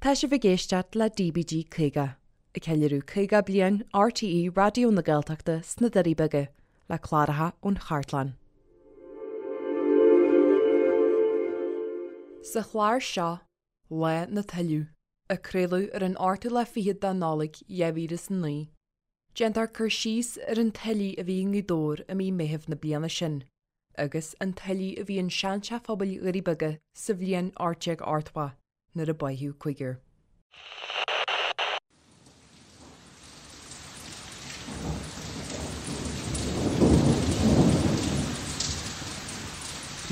Tá sibh ag éisteacht le DBG 50, ag ceiliúradh 50 bliain RTÉ Raidió na Gaeltachta sna Doirí Beaga, le cláracha ón chartlann. Sa chlár seo, Lá na Tuilleadh, a craoladh ar an ochtú lá fichead de Nollaig 2009, déantar cur síos ar an tuile a bhí i nGaoth Dobhair i mí Meithimh na bliana sin agus an tuile a bhí in seanteach phobail Dhoirí Beaga sa bhliain 1880 nuair a báitheadh cúigear.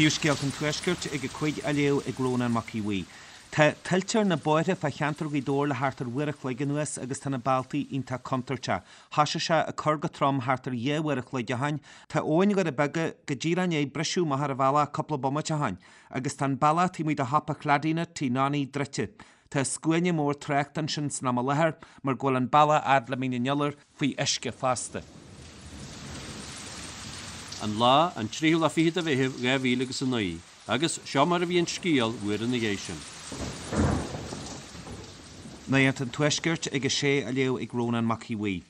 Príomhscéalta an Tuaiscirt ag a 5 á léamh ag Rónán Mac Aodha Bhuí. Tá tuilte ar na bóithre fá cheantar Ghaoth Dobhair le thart ar uair a chloig anuas agus tá na bealtaí iontach contúirteach. Thoisigh sé ag cur go trom thart ar dhá uair a chloig ó shoin. Tá abhainn Dhoire Beaga go díreach i ndiaidh briseadh amach ar an bhealach cúpla bomaite ó shoin. Agus tá an bealach taobh amuigh de shiopa Chladina, Tigh Nonny, druidte. Tá scuaine mór tráchta ansin san am i láthair mar go bhfuil an bealach fhad le Mín an Iolair faoi uisce fosta. An lá, an tríú lá fichead de Mheitheamh 2000 agus 9, agus seo mar a bhí an scéal uair ina dhiaidh sin. Nuacht an Tuaiscirt ag a sé á léamh ag Rónán Mac Aodha Bhuí.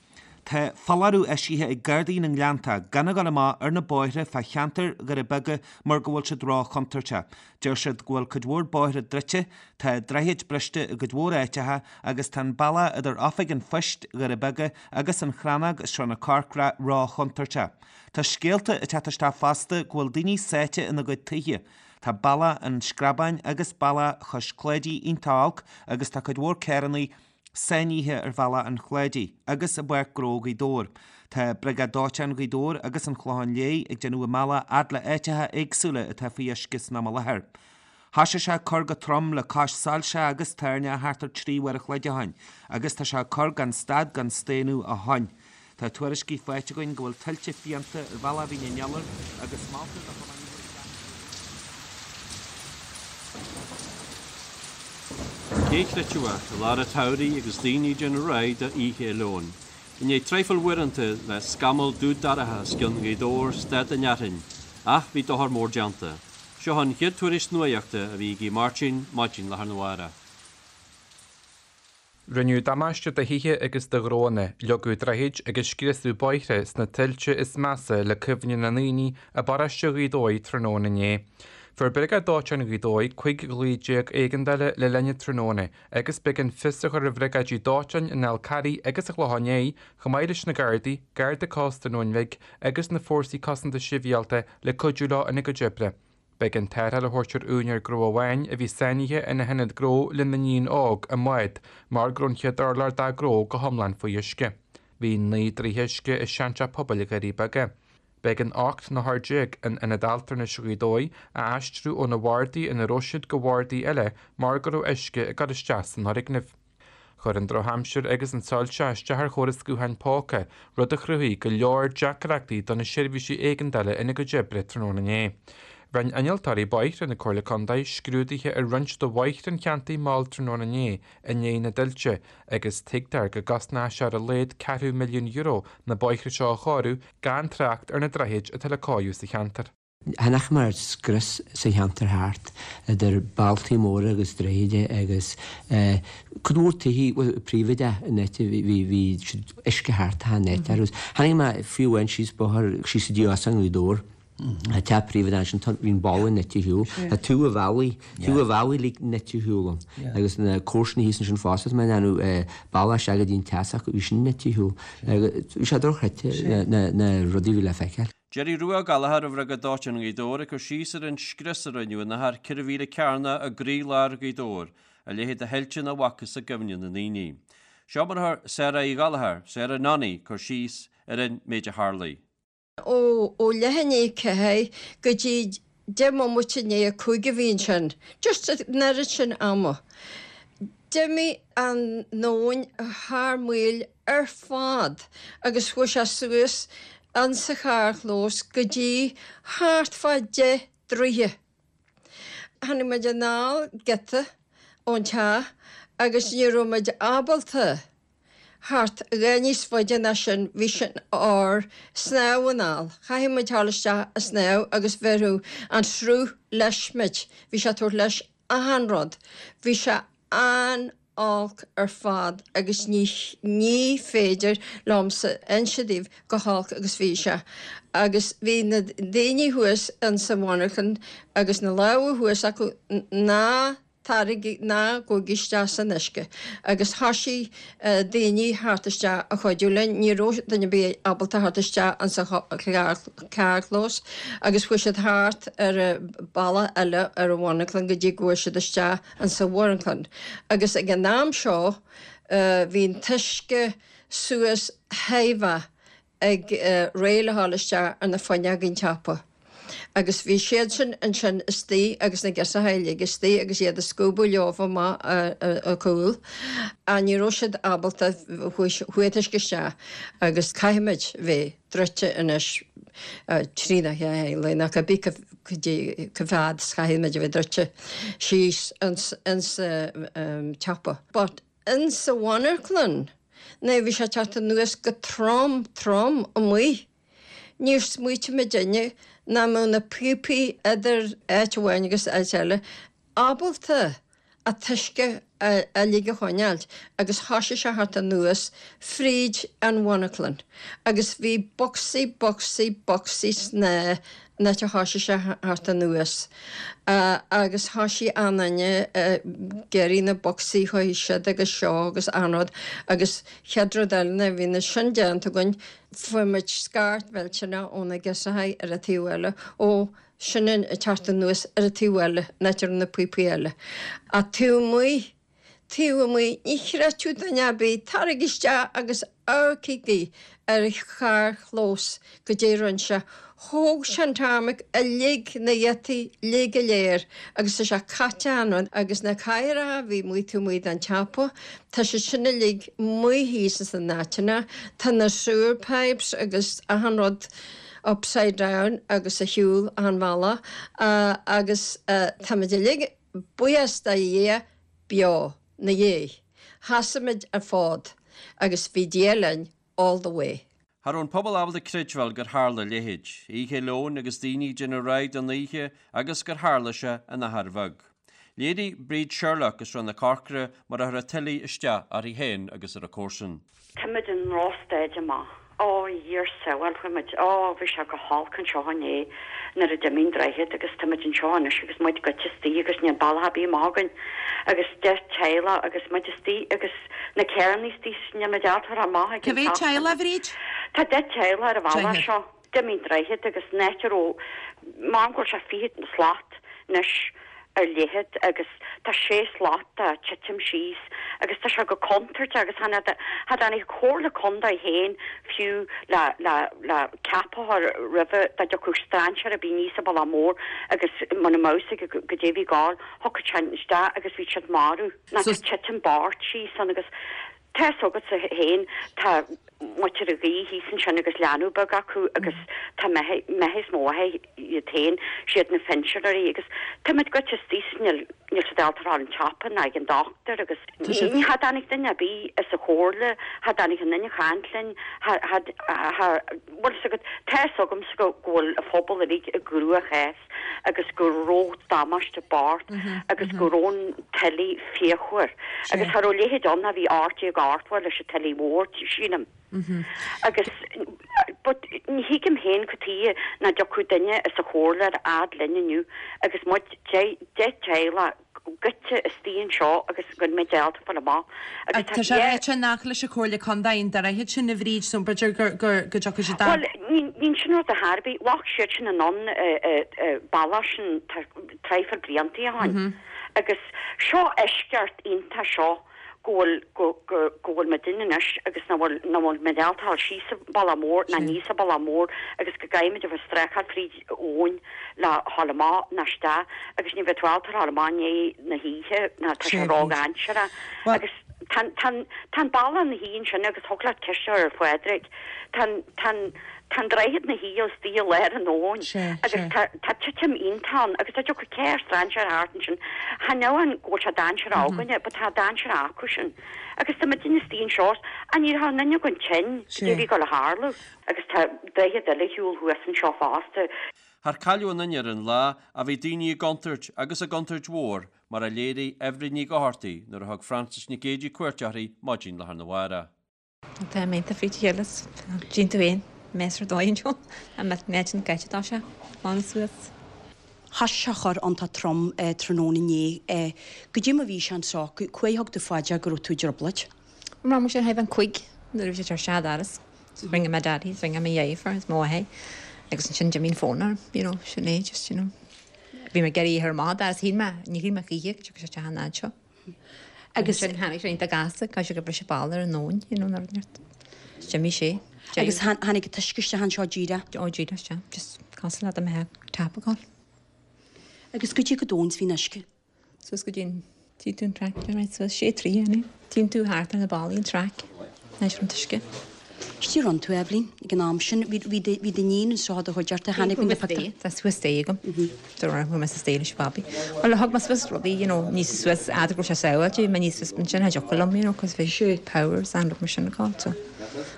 Tá foláireamh eisithe ag Gardaí na nGleanntach gan a dhul amach ar na bóithre fá cheantar Dhoire Beaga mar go bhfuil siad ró-chontúirteach. Deir siad go bhfuil cuid mhór bóithre druidte, tá droichid briste i gcuid mhór áiteacha agus tá an bealach idir Oifig an Phoist, Dhoire Beaga agus an Chrannóg i Srath na Corcra ró-chontúirteach. Tá scéalta ag teacht isteach fosta go bhfuil daoine sáite ina gcuid tithe. Tá bealach an Screabáin agus bealach Chois Cláidí iontach olc agus tá cuid mhór carrannaí sáinnithe ar bhealach an Chláidigh agus i bPáirc Ghnó Ghaoth Dobhair. Tá Briogáid Dóiteáin Ghaoth Dobhair agus an Chlocháin Léith ag déanamh a mbealach fhad le áiteacha éagsúla atá faoi uisce san am i láthair. Thoisigh sé ag cur go trom le cois soilse agus toirneach thart ar 3 uair a chloig ó shoin agus tá sé ag cur gan stad gan staonadh ó shoin. Tá tuairiscí faighte againn go bhfuil tuilte fiánta ar bhealach Mhín an Iolair agus moltar do thiománaithe gan Cé chreidfeadh, i lár an tsamhraidh agus daoine ag déanamh réidh do Oíche Fhéile Eoin. I ndiaidh traidhfil uaireanta le scamall dubh dorcha os cionn Ghaoth Dobhair stad an fhearthainn, ach bhí dochar mór déanta. Seo an chéad tuairisc nuaíochta a bhí ag Aodh Máirtín maidin lá arna mhárach. Rinneadh damáiste do thithe agus do ghnóanna, leagadh droichid agus scriosadh bóithre sna tuilte is measa le cuimhne na ndaoine i bparóiste Ghaoth Dobhair tráthnóna inné. Fuair Briogáid Dóiteáin Ghaoth Dobhair 15 ghlaoh éigeandála le linn an tráthnóna agus b'éigean fios a chur ar bhriogáidí dóiteáin an Fhál Carraigh agus an Chlocháin Léith chomh maith leis na Gardaí, Garda Cósta an Abhainn Bhig agus na Fórsaí Cosanta Sibhialta le cuidiú leo ina gcuid oibre. B'éigean tarrtháil a thabhairt ar úinéir gnó amháin a bhí sáinnithe ina hionad gnó lena iníon óg i mbád mar go raibh an chéad urlár dá gnó go hiomlán faoi uisce. Bhí 9 dtroithe uisce i seanteach pobail Dhoirí Beaga. B'éigean 18 n-othar in Ionad Altranais Ghaoth Dobhair a aistriú ó na bhardaí ina raibh siad go bhardaí eile mar go raibh uisce ag dul isteach san fhoirgneamh. Chuir an drochaimsir agus an tsoilse isteach ar chóras gutháin póca, rud a chruthaigh go leor deacrachtaí do na seirbhísí éigeandála ina gcuid oibre tráthnóna inné. Rinne innealtóirí bóithre na Comhairle Contae scrúduithe ar roinnt de bhóithre an cheantair mall tráthnóna inné i ndiaidh na dtuilte agus tuigtear go gcosnóidh sé ar a laghad ceathrú milliún euro na bóithre seo a chóiriú gan trácht ar na droichid atá le cóiriú sa cheantar. Chonaic muid scrios sa cheantar thart, idir bealtaí móra agus droichid agus cuid mhór tithe, bhuel príobháideach in áit, bhí bhí siad uisce thart achan áit agus tháinig mé fiú amháin síos bóthar síos go dtí Óstán Ghaoth Dobhair, tá teach príobháideach ansin, tá bhí an balla nite ar shiúl, tá taobh an bhealaigh, taobh an bhealaigh uilig nite ar shiúl ann agus na comharsana thíos ansin fosta, tá mé in ann bealach isteach go dtí an teach s'acu, bhí sin nite ar shiúl agus bhí sé dochreidte na na rudaí a bhí le feiceáil. Jerry Rua Ó Gallchóir ó Bhriogáid Dóiteáin Ghaoth Dobhair ag cur síos ar an scrios a rinneadh in achar 4 mhíle cearnach i gcroílár Ghaoth Dobhair, a leithéid de thuilte nach bhfacthas i gcuimhne na ndaoine. Seo mar a chuir Sarah Uí Ghallchóir, Sarah Nonny, cur síos ar an méid a tharlaigh. Ó leath i ndiaidh 4 go dtí 10 mbomaite i ndiaidh 5 a bhí ansin, just an oiread sin ama. D'imigh an abhainn thar maoil ar fad agus chuaigh sé suas insa charrchlós go dtí thart fá 10 dtroithe. Tháinig muid anall giota ón teach agus ní raibh muid ábalta theacht a dhath níos faide ná sin, bhí sin ár snámh anall. Chaithfeadh muid dhul isteach a snámh agus bhéarfadh an sruth leis muid, bhí sé ag tabhairt leis achan rud. Bhí sé an-olc. An-olc ar fad agus ní ní féidir liomsa inse daoibh go holc agus bhí sé. Agus bhí na daoine thuas insa mhonarchan agus na lámha thuas acu ná taraigí ná gabhaigí isteach san uisce. Agus thoisigh daoine theacht isteach a chuidiú linn, ní raibh duine ar bith ábalta theacht isteach insa charrchlós agus chuaigh siad thart ar an bealach eile ar an mhonarchan go dtí go bhfuair siad isteach insa mhonarchan. Agus ag an am seo bhí an t-uisce suas thaobh ag réidh le ghabháil isteach ar na fuinneoga an tsiopa. Agus bhí siadsan ansin istigh agus na girseacha uilig istigh agus iad ag scuabadh leofa amach a cúl. Ach ní raibh siad ábalta, chuaigh an t-uisce isteach agus caithfimid bheith druidte anois trína chéile nó cibé cá fhad is chaithfimid a bheith druidte síos insa tsiopa. But insa mhonarchlann nuair a bhí sé ag teacht anuas go trom trom amuigh níor smaoitigh muidinne nach mbeadh na píopaí idir áit amháin agus áit eile ábalta an t-uisce uilig a choinneáilt agus thoisigh sé theacht anuas fríd an mhonarchlann agus bhí bocsaí bocsaí bocsaí snámha an áit a thoisigh sé theacht anuas agus thoisigh achan duine ag iarraidh na bocsaí chuaigh siad agus seo agus achan rud agus chéad rud eile nuair a bhí na sin déanta againn fuair muid scairt mhillteanach ó na girseachaí ar an taobh eile ó sin ag teacht anuas ar an taobh eile, an áit a raibh na píopaí eile. Ach taobh amuigh, taobh amuigh, ní chreidfeadh duine ar bith, taraigí isteach agus amharcaigí ar an charrchlós goidé a rinne sé. Thóg sé an tarmac uilig, na gheataí uilig go léir agus tá sé caite achan rud agus na cathaoireacha a bhí amuigh taobh amuigh den tsiopa, tá siad sin uilig amuigh thíos ins na n-áiteanna, tá na sewer pipes agus achan rud, upside down agus ar shiúl achan bhealach agus táimid uilig, buíochas do Dhia, beo 'na dhiaidh. Sheasaigh muid an fód agus bhí Dia linn all the way. Cha raibh an pobal ábalta creidbheáil gur tharla a leithéid, Oíche Leoin agus daoine ag déanamh réidh don oíche agus gur tharla sé in achar bheag. Léirigh Bríd Sherlock as Srath na Corcra mar a chuir an tuile isteach uirthi féin agus ar a comharsain. Táimid i ndrochstaid amach. Ó, a Dhia ár sábháil, fuair muid, ó, bhí sé go holc anseo inné nuair a d'imigh an droichead agus táimid anseo anois agus muid goite istigh agus níl bealach ar bith amach againn agus 10 teaghlach agus muid istigh agus na carranna istigh níl muid ábalta a ghabháil amach ag Cá an mhéad teach. teaghlach, a Bhríd? Tá 10 teaghlach ar an bhealach Deichniúr. seo. D'imigh an droichead agus an áit a raibh, measaim go bhfuil sé 20 slat anois ar leithead agus tá sé slat ag titim síos agus tá sé go contúirteach agus chan cha dtáinig an Chomhairle Contae féin fiú le le le ceapadh a chur roimhe dá dtiocfadh strainséir ar bith aníos an bealach mór agus muna mbeadh fhios aige goidé a bhí ag gabháil, thiocfadh sé isteach agus bhí siad marbh. Ná tá titim bocht síos ann agus Tá fhios agatsa féin, tá muintir an ghaoth thíos ansin agus leanbh beag acu agus tá maithe is mó iad féin, siad na pinsinéirí agus táimid goite istigh is níl níl siad ábalta a ghabháil an tsiopa ná ag an dochtúir agus ní cha dtáinig duine ar bith as an chomhairle, cha dtáinig aon duine a chaint linn, cha cha cha bhfuil fhios agat, tá fhios agamsa go go bhfuil an phobal uilig i gcruachás. agus go raibh damáiste bocht agus go raibh an tuile fíochmhar agus cha raibh a leithéid ann ó bhí 1880 leis an tuile mhór, sílim. Agus but ní thuigim féin cad tuighe nach dtiocfadh duine as an chomhairle ar fhad linn inniu agus muid 10 teaghlach goite istigh anseo agus go mbeidh ábalta fáil amach agus tá sé ráite nach leis an Chomhairle Contae an droichead sin a Bhríd so b'fhéidir go dtiocfaidh siad Bhuel, níl sin rud ar bith. Bheadh siad sin in ann bealach sin traidhfil blianta ó shin. Agus seo eisceacht iontach seo go bhfuil go go go bhfuil muidinne anois agus nach bhfuil nach bhfuil muid ábalta a ghabháil síos an bealach mór ná aníos an bealach mór agus go gcaithfimid a bheith ag streachailt fríd abhainn le ghabháil amach ná isteach agus ní bheidh tú ábalta a ghabháil amach i ndiaidh na hoíche ná tá sé ródhainséarach agus tá tá tá an bealach ina shuí ansin agus thig leat ceist a chur ar Phádraig tá an tá an tá an droichead ina shuí istigh i lár an abhainn agus tá tá titim iontach ann agus dá dtiocfadh carr strainséir thart ansin chan amháin go bhfuil sé dainséarach againne but tá dainséarach acu sin agus tá muidinne istigh anseo ach ní raibh aon duine againn tinn goidé a bhí ag dul a tharlú. Agus tá droichead eile ar shiúl thuas anseo fosta. Char cailleadh aon duine ar an lá ach bhí daoine i gcontúirt agus i gcontúirt mhór mar a léirigh Eibhlín Ní Dhochartaigh nuair a thug Frances Nic Géidigh cuairt uirthi maidin lá arna mhárach. Tá mé ionta fríd a chéile is tchíonn tú féin mess ar dóigh anseo. Tá mé an gaite dá sé lán suas. Thoisigh sé a chur iontach trom tráthnóna inné. Goidé mar bhí sé anseo, cá huair a thug tú fá dear go raibh tú i dtrioblóid? Mar mar sin thaobh an cuig nuair a bhí sé tar sead aras rinne mé daddy is rinne mé dheirfiúr is mo mháthair agus ansin d'imigh an fón orm you know sin é just you know bhí mé ag iarraidh a chur amach as shíl mé ní shíl mé choíche go dtiocfadh sé isteach an fhad seo agus ansin tháinig sé iontach gasta caithfidh sé gur briseadh balla ar an nóin you know nuair a d'imigh sé Agus tháinig an t-uisce isteach anseo díreach? Ó díreach isteach just cosúil le dá mbeadh tap ag dul. Agus goidé chomh domhain is bhí an uisce? Suas go dtí an Tchíonn tú an traic ar aghaidh suas sé troigh ann. Tchíonn tú thart ar na ballaí an traic anois ar an t-uisce. Goidé rinne tú, Eibhlín, ag an am sin. Bhí bhí do bhí d'iníon anseo i do chuideachta, tháinig na pictiúir. Tá suas staighre agam. Don't worry, bhfuair mé sa staighre leis an bhabaí. Bhuel, thug mé suas rudaí, you know, níos suas, fhad go raibh sé sábháilte, bhí mé níos suas ansin, cha dtiocfadh liom, you know, cos bhí powers and rud mar sin ag dul, so.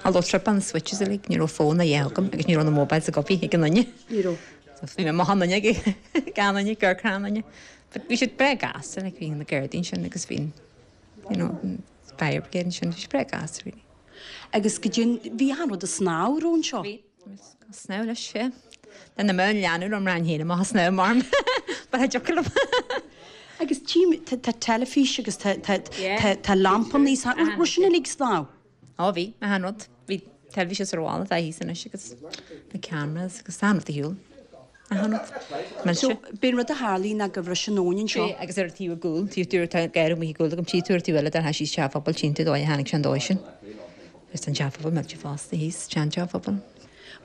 Although trip on the switches uilig, ní raibh fón a dhath agam agus ní raibh na mobiles ag obair ag aon duine. Ní raibh. So bhí mé amach an fhuinneog ag an duine, ag amharc ar an duine. But bhí siad breá gasta, like bhí na Gardaí ansin agus bhí an, you know, an fire brigade ansin, bhí siad breá gasta really. Agus goidé, bhí achan rud ag snámh, raibh anseo? Bhí, ag snámh leis, yeah. Then na mbeadh an leanbh liom rang féin amach ag snámh mar but cha dtiocfadh liom. Agus tchím, tá tá teilifís agus tá tá tá tá lampannaí, raibh sin uilig ag snámh? Ó bhí, achan rud. Bhí teilifís is ar bhalla atá thíos anois agus na cameras agus achan rud ar shiúl. Achan rud. Millte. So, b'é an rud a tharlaigh ná gur bhris an abhainn anseo. Sea, agus ar an taobh i gcúl, taobh dúr tá garraí amuigh i gcúl agam, tchí tú ar an taobh eile dar síos teach an phobail, tchíonn tú dóigh a tháinig sé an dóigh sin. Agus tá an teach pobail millte fosta thíos, sean teach pobail.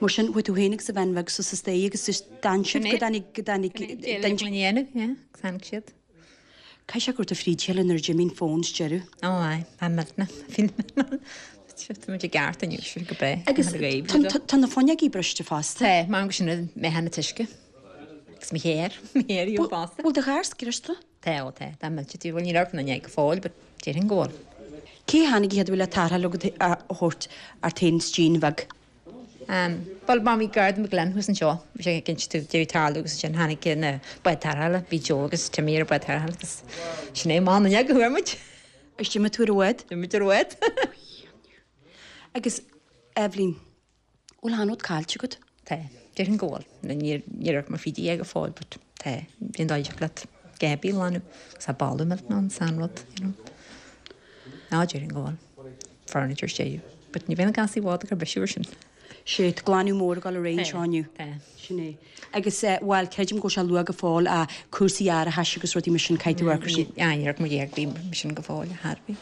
Mar sin, chuaigh tú féin agus an bhean bheag suas an staighre agus just d'fhan sibh go dtáinig, go dtáinig, Go dtáinig, yeah, agus tháinig siad. Caithfidh sé go raibh tú fríd a chéile nuair a d'imigh an fón sa deireadh. Ó aye, tá millteanach, feel millteanach. Tá muid i gceart inniu, sin go breá. Agus tá na fuinneogaí briste fosta. Tá, mar go sin an meath an t-uisce. Agus mo chéir, mo chéir í fosta. Bhfuil do charr scriosta? Tá, ó tá, tá millte tí, bhuel níl orm na go fóill, but déarfainn go bhfuil. Cé a tháinig an chéad uair le tarrtháil agat a thabhairt ort féin is d'iníon bheag? Bhuel, mar bhí Garda McGlynn thuas anseo, bhí sé ag inse dúinn deireadh tarlú agus ansin tháinig na báid tarrthála, bhí Joe agus Timmy ar an bád tarrthála agus sin é, amach an fhuinneog a chuaigh muid. Is d'imigh tú ar an bhád? D'imigh muid ar an bhád. Agus, Eibhlín, bhfuil achan rud caillte agat? Tá, déarfainn go bhfuil. Níor amharc mé fríd é go fóill but tá, bhí an dóigh leat Gaby a ghlanadh agus tá boladh millteanach ann, san rud, you know. Ná déarfainn go bhfuil. Furniture sé. But ní bheidh na gás i bhfad ag cur bisiú ar sin. Sé, tá glanadh mór ag dul ar aghaidh anseo inniu. Tá. Sin é. Agus, eh, bhuel, creidim go bhfuil sé luath go fóill, ah, cúrsaí árachais agus rudaí mar sin, caithfidh tú amharc ar sin. Ah, ní raibh muid ag bhí mar sin go fóill, a Harvey.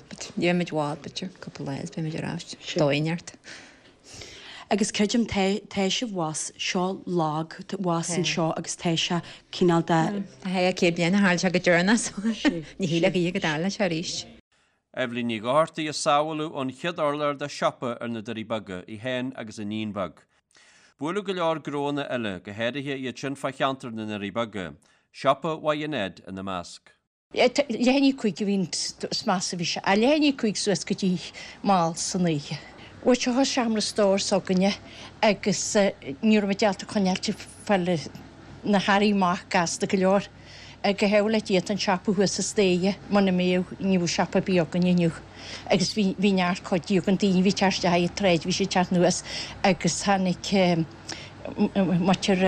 But ní bheidh muid i bhfad, b'fhéidir, cúpla lá is beidh muid ar ais. Dóigh neart. Agus creidim, tá, tá sibh abhus, seo lag, abhus anseo agus tá sé cineál de. Tá sé 100 bliain a tharla sé go deireanach so ní shílfeá go dtarlódh sé arís. Eibhlín Ní Dhochartaigh a sábháladh ón chéad urlár de shiopa ar na Doirí Beaga, í féin agus a níon bheag. Buaileadh go leor gnóanna eile, go háirithe iad sin fá cheantar na nDoirí Beaga, siopa Mhaigh Ned ina measc. Leath i ndiaidh 5 a bhí an is measa a bhí sé. Leath i ndiaidh 5 suas go dtí mall san oíche. Bhuel seo seomra stóir s'againne agus ní raibh muid ábalta coinneáilt fáil na hearraí amach gasta go leor. Go hámhail le Dia tá an siopa thuas sa staighre, muna mbeadh ní bheadh siopa ar bith againne inniu. Agus bhí bhí neart cuidiú againn, daoine a bhí ag teacht isteach ag troid, bhí siad ag teacht anuas agus tháinig muintir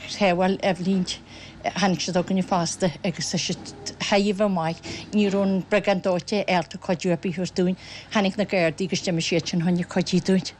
Shábháil Eibhlín, tháinig siad chugainne fosta agus tá siad thar a bheith maith. Ní raibh an Briogáid Dóiteáin ábalta cuidiú ar bith a thabhairt dúinn. Tháinig na Gardaí agus d'imigh siad sin chun cuidiú dúinn.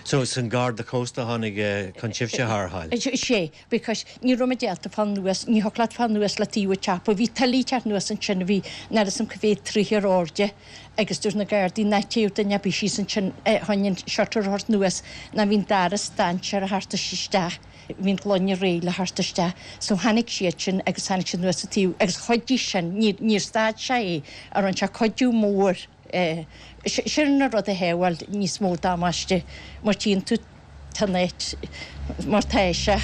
So is an Garda Cósta a tháinig chun sibhse a tharrtháil? Sea, because ní raibh muid ábalta fáil anuas, ní thiocfadh leat fáil anuas le taobh an tsiopa. Bhí tuile ag teacht anuas ansin, bhí n'fheadar fhios a'm cá mhéad troigh ar airde agus dúirt na Gardaí ná téadh duine ar bith síos ansin chun an shutter a thabhairt anuas ná bhí an doras dainséar a theacht isteach, bhí an gloine réidh le theacht isteach. So tháinig siad sin agus tháinig siad anuas an taobh agus chuidigh sin, níor stad sé é, a rinne sé cuidiú mór. Sin an rud a shábháil níos mó damáiste mar tchíonn tú tá an áit mar tá sé.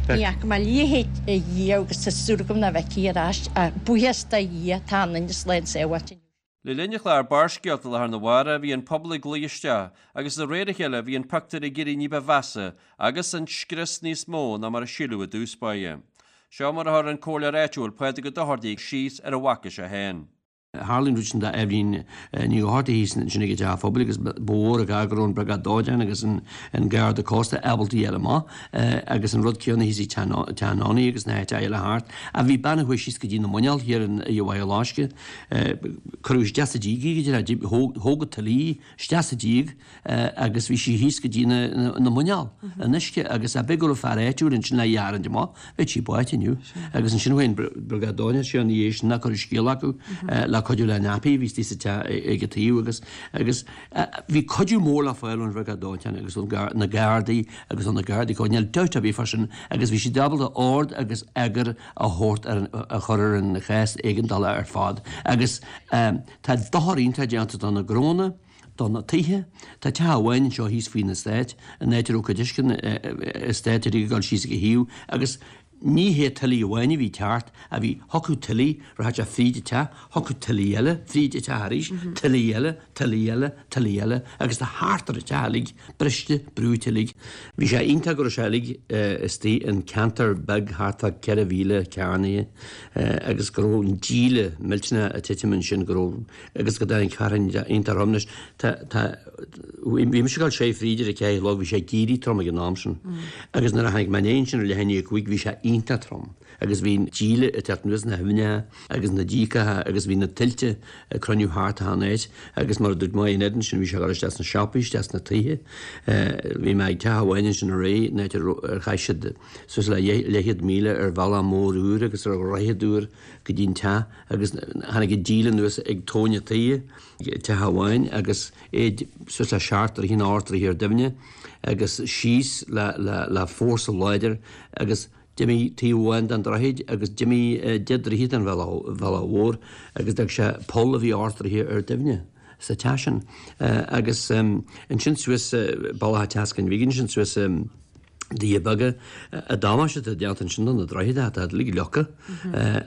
Ní fhaca mé a leithéid riamh agus tá súil agam nach bhfeicfidh ar ais ach buíochas do Dhia tá an duine slán sábháilte inniu. Le linn an chláir Barrscéalta lá arna mhárach bhí an pobal ag luí isteach agus de réir a chéile bhí an pictiúr ag éirí ní ba mheasa agus an scrios níos mó ná mar a síleadh i dtús báire. Seo mar a chuir an comhairleoir áitiúil Pádraig Ó Dochartaigh síos ar a bhfaca sé féin. Tharla an rud sin d'Eibhlín Ní Dhochartaigh thíos ansin ag an teach phobail agus ba mhór an gar go raibh an Briogáid Dóiteáin agus an Garda Cósta ábalta a ghabháil amach agus an rud céanna thíos ag Teach Nonny agus na háiteacha eile thart. Ach bhí bean a chuaigh síos go dtí na muineál thiar in i Bhaile Loiscthe. Cuireadh isteach sa díog í go dtí thóg an tuile í isteach sa díog agus bhí sí thíos go dtí na muineál in uisce agus ab é go raibh fear áitiúil ansin le í a tharraingt amach, bheadh sí báite inniu. Agus ansin chuaigh an Briogáid Dóiteáin ina dhiaidh sin nach raibh scéal acu le cuidiú le Nappy a bhí istigh sa teach ag an taobh agus agus bhí cuidiú mór le fáil ón Bhriogáid Dóiteáin agus ó na Gardaí agus ó na Gardaí Cósta, níl dabht ar bith fá sin agus bhí siad ábalta ord agus eagar a thabhairt ar an a chur ar an chás éigeandála ar fad agus tá dochar iontach déanta do na gnónna, do na tithe. Tá teach amháin anseo thíos faoin eastát, an áit a raibh cuid uisce an eastáit ag dul síos ag a thaobh agus ní hé tuile amháin a bhí ag teacht ach bhí, thiocfadh tuile, rachadh sé fríd an teach, thiocfadh tuile eile fríd an teach arís, tuile eile, tuile eile, tuile eile agus tá thart ar an teach uilig briste, brúite uilig. Bhí sé iontach go raibh sé uilig istigh in ceantar beag thart fá 4,000 cearnaithe agus go raibh an díle millteanach ag titim ansin, go raibh agus go dtáinig fearthainn iontach trom anois. Tá, tá, bhí mise ag dul soir fríd ar a ceathair a chlog, bhí sé ag éirí trom ag an am sin. Agus nuair a tháinig mé aniar ansin ar leath i ndiaidh a cúig bhí sé iontach trom. Agus bhí an díle ag teacht anuas na haibhneacha agus na díogacha agus bhí na tuilte ag cruinniú thart achan áit agus mar a dúirt mé in éadan sin bhí sé ag dul isteach sna siopaí, isteach sna tithe. Bhí mé ag teach amháin ansin aréir, an áit ar chaith siad suas le leathchéad míle ar bhealach mór úr agus ar dhroichead úr go dtí an teach agus tháinig an díle anuas ag tóin an tí, teach amháin agus é suas le seacht dtroithe nó ocht dtroithe ar doimhne agus síos le, le, le fórsa láidir agus d'imigh taobh amháin den droichead agus d'imigh deich dtroithe den bhealach, bhealach mhór agus d'fhág sé poll a bhí ocht dtroithe ar doimhne sa teach sin. Agus ansin suas bealach an tSeascainn Bhig ansin suas Doirí Beaga, an damáiste atá déanta ansin do na droichid, tá uilig leagtha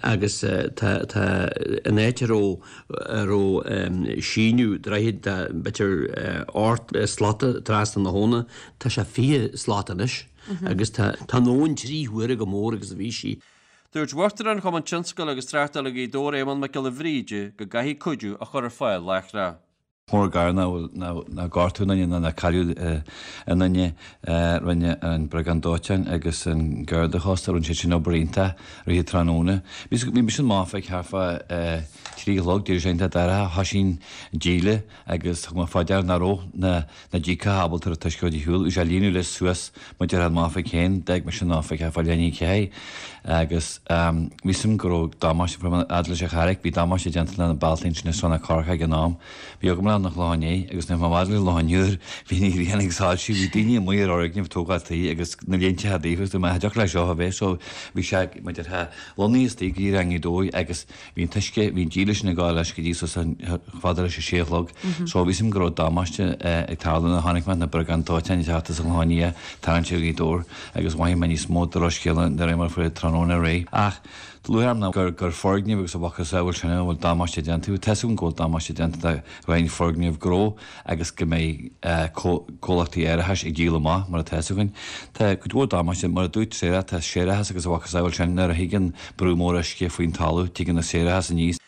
agus tá tá an áit a raibh a raibh síneadh droichid tá b'fhéidir ocht slata trasna na habhna, tá sé 20 slat anois agus tá tá an abhainn trí huaire chomh mór agus a bhí sí. Dúirt Uachtarán Chumann Tionscail agus Tráchtála Ghaoth Dobhair Éamonn Mac Giolla Bhríde go gcaithfí cuidiú a chur ar fáil láithreach. Mór an gar nár gortaíodh aon duine ná nár cailleadh aon duine. Rinne an Briogáid Dóiteáin agus an Garda Chósta, rinne siad sin obair iontach i rith an tráthnóna. Bhí mise amach ag thart fá 3 a chlog, d'éirigh sé iontach dorcha, thoisigh an díle agus thug mé fá deara nach raibh na na díogacha ábalta an t-uisce a chur ar shiúl. Bhí sé ag líonadh leis suas mar a déarfá an oifig féin. D'fhág mise an oifig thart fá leath i ndiaidh a ceathair agus bhí fhios agam go raibh damáiste fad leis an Charraic. Bhí damáiste déanta le na bealtaí ansin i Srath na Corcach ag an am. Bhí agam le an Chlochán Liath agus nuair a bhí mé fhad leis an Chlochán Úr bhí an ghrian ag soilsiú. Bhí daoine amuigh ar fhoirgnimh ag tógáil tí agus na léinte daofa agus dúirt mé cha dtiocfadh leis seo a bheith so bhí sé mar a déarfá lonnaithe istigh go dtí i nGaoth Dobhair agus Bhí an t-uisce, bhí an díle sin ag gabháil leis go dtí suas chomh fada leis an sé a chlog. So bhí fhios agam go raibh damáiste ag tarlú nuair a chonaic mé na briogáid dóiteáin ag teacht as an Chlochán Liath tarraingt ar Ghaoth Dobhair agus mhothaigh mé níos mó drochscéala de réir mar a fuair tráthnóna ar aghaidh. Ach lúcháir orm ná gur gur foirgnimh agus a mhacasamhail sin a bhfuil damáiste déanta. Tá fhios agam go bhfuil damáiste déanta do roinnt foirgneamh gnó agus go mbeidh comhlachtaí árachais ag díol amach, mar atá fhios againn. Tá cuid mhór damáiste, mar a dúirt Sarah, tá séarachas agus a mhacasamhail sin, nuair a thigeann brú mór uisce faoin talamh, tigeann an séarachas aníos.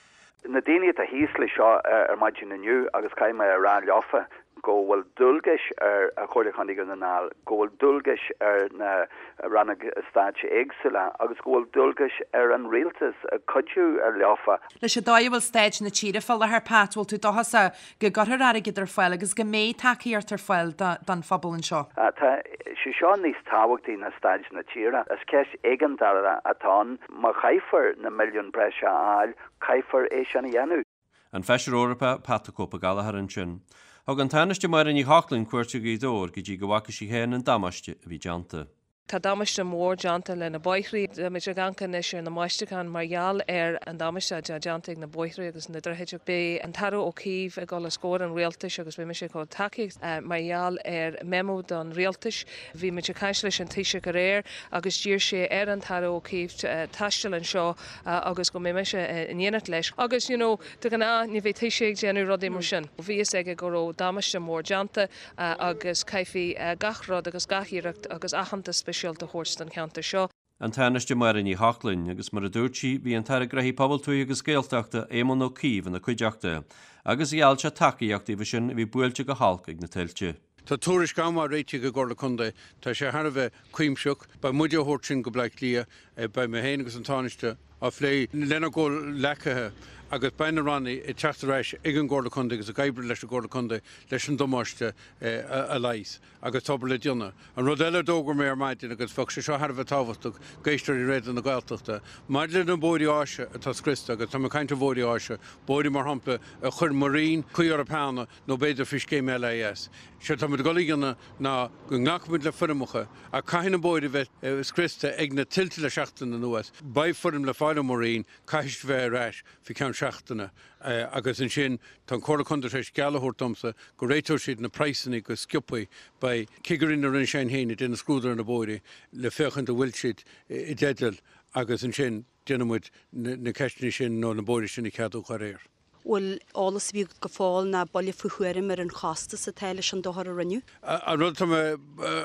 Na daoine atá thíos leis seo ar maidin inniu agus caithfidh mé a rá leofa go bhfuil dualgais ar Chomhairle Chontae Dhún na nGall, go bhfuil dualgais ar na rannóga stáit éagsúla agus go bhfuil dualgais ar an rialtas cuidiú leofa. Leis an dóigh a bhfuil staid na tíre fá láthair, Pat, bhfuil tú dóchasach go gcuirfear airgead ar fáil agus go mbeidh tacaíocht ar fáil don phobal anseo. Tá sé seo níos tábhachtaí ná staid na tíre. Is ceist éigeandála atá ann. Má chaithfear na milliúin breise a fháil, caithfear é sin a dhéanamh. An Feisire Eorpach Pat the Cope Gallagher ansin. Thug an Tánaiste Máire Ní Chochlainn cuairt ar Ghaoth Dobhair go dtí go bhfaca sí féin an damáiste a bhí déanta. Tá damáiste mór déanta le na bóithrí. Táimid ag amharc anois ar na mbáisteachán mar gheall ar an damáiste atá déanta ag na bóithrí agus na droichid. Beidh an tAire Ó Cuív ag dul os comhair an Rialtais agus beidh mise ag dul tacaíocht mar gheall ar memo don Rialtais. Bhí muid ag caint leis an Taoiseach aréir agus d'iarr sé ar an tAire Ó Cuív taisteal anseo agus go mbeidh mise in éineacht leis. Agus you know, de ghnáth ní bheidh Taoiseach ag déanamh rudaí mar sin. Bhí fhios aige go raibh damáiste mór déanta. agus caithfí gach rud agus gach iarracht agus aitheantas speisialta a thabhairt don cheantar seo. An Tánaiste Máire Ní Chochlain, agus mar a dúirt sí, bhí an tAire Gnóthaí Pobail, Tuaithe agus Gaeltachta, Éamon Ó Cuív ina cuideachta, agus gheall sé tacaíocht daofa sin a bhí buailte go holc ag na tuilte. Tá tuairisc an-mhaith réitithe ag an gComhairle Contae. Tá sé thar a bheith cuimsitheach. Beidh muide á thabhairt sin go Bleá Cliath. Beidh mé féin agus an Tánaiste á phlé lenár gcomhghleacaithe agus beidh na ranna ag teacht ar ais ag an gComhairle Contae agus ag oibriú leis an gComhairle Contae leis an damáiste a leigheas agus tá obair le déanamh. An rud eile a d'fhógair mé ar maidin agus bheadh sé seo thar a bheith tábhachtach d'éisteoirí Raidió na Gaeltachta, maidir le na bóithrí áise atá scriosta agus tá mé ag caint ar bhóithrí áise, bóithrí mar shampla a chuir mo Roinn caoi orthu cheana nó b'fhéidir faoi scéim LIS. Séard tá muid ag dul a dhéanamh ná go nglacfaidh muid le foirmeacha ach caithfidh na bóithre a bheith scriosta ag na tuilte le seachtain anuas. Beidh foirm le fáil ó mo Roinn, caithfidh siad bheith ar ais faoi cheann seachtaine agus ansin tá an Comhairle Contae tar éis geall a thabhairt domsa go réiteoidh siad na praghsanna go sciobtha. Beidh cigirí na Roinne sin féin ag déanamh scrúdú ar na bóithre le féachaint an bhfuil siad i dteideal agus ansin déanfaidh muid na ceisteanna sin nó na bóithre sin a cheadú dá réir. bhfuil eolas ar bith agat go fóill ná buille faoi thuairim ar an chostas atá leis an dochar a rinneadh? An rud atá mé,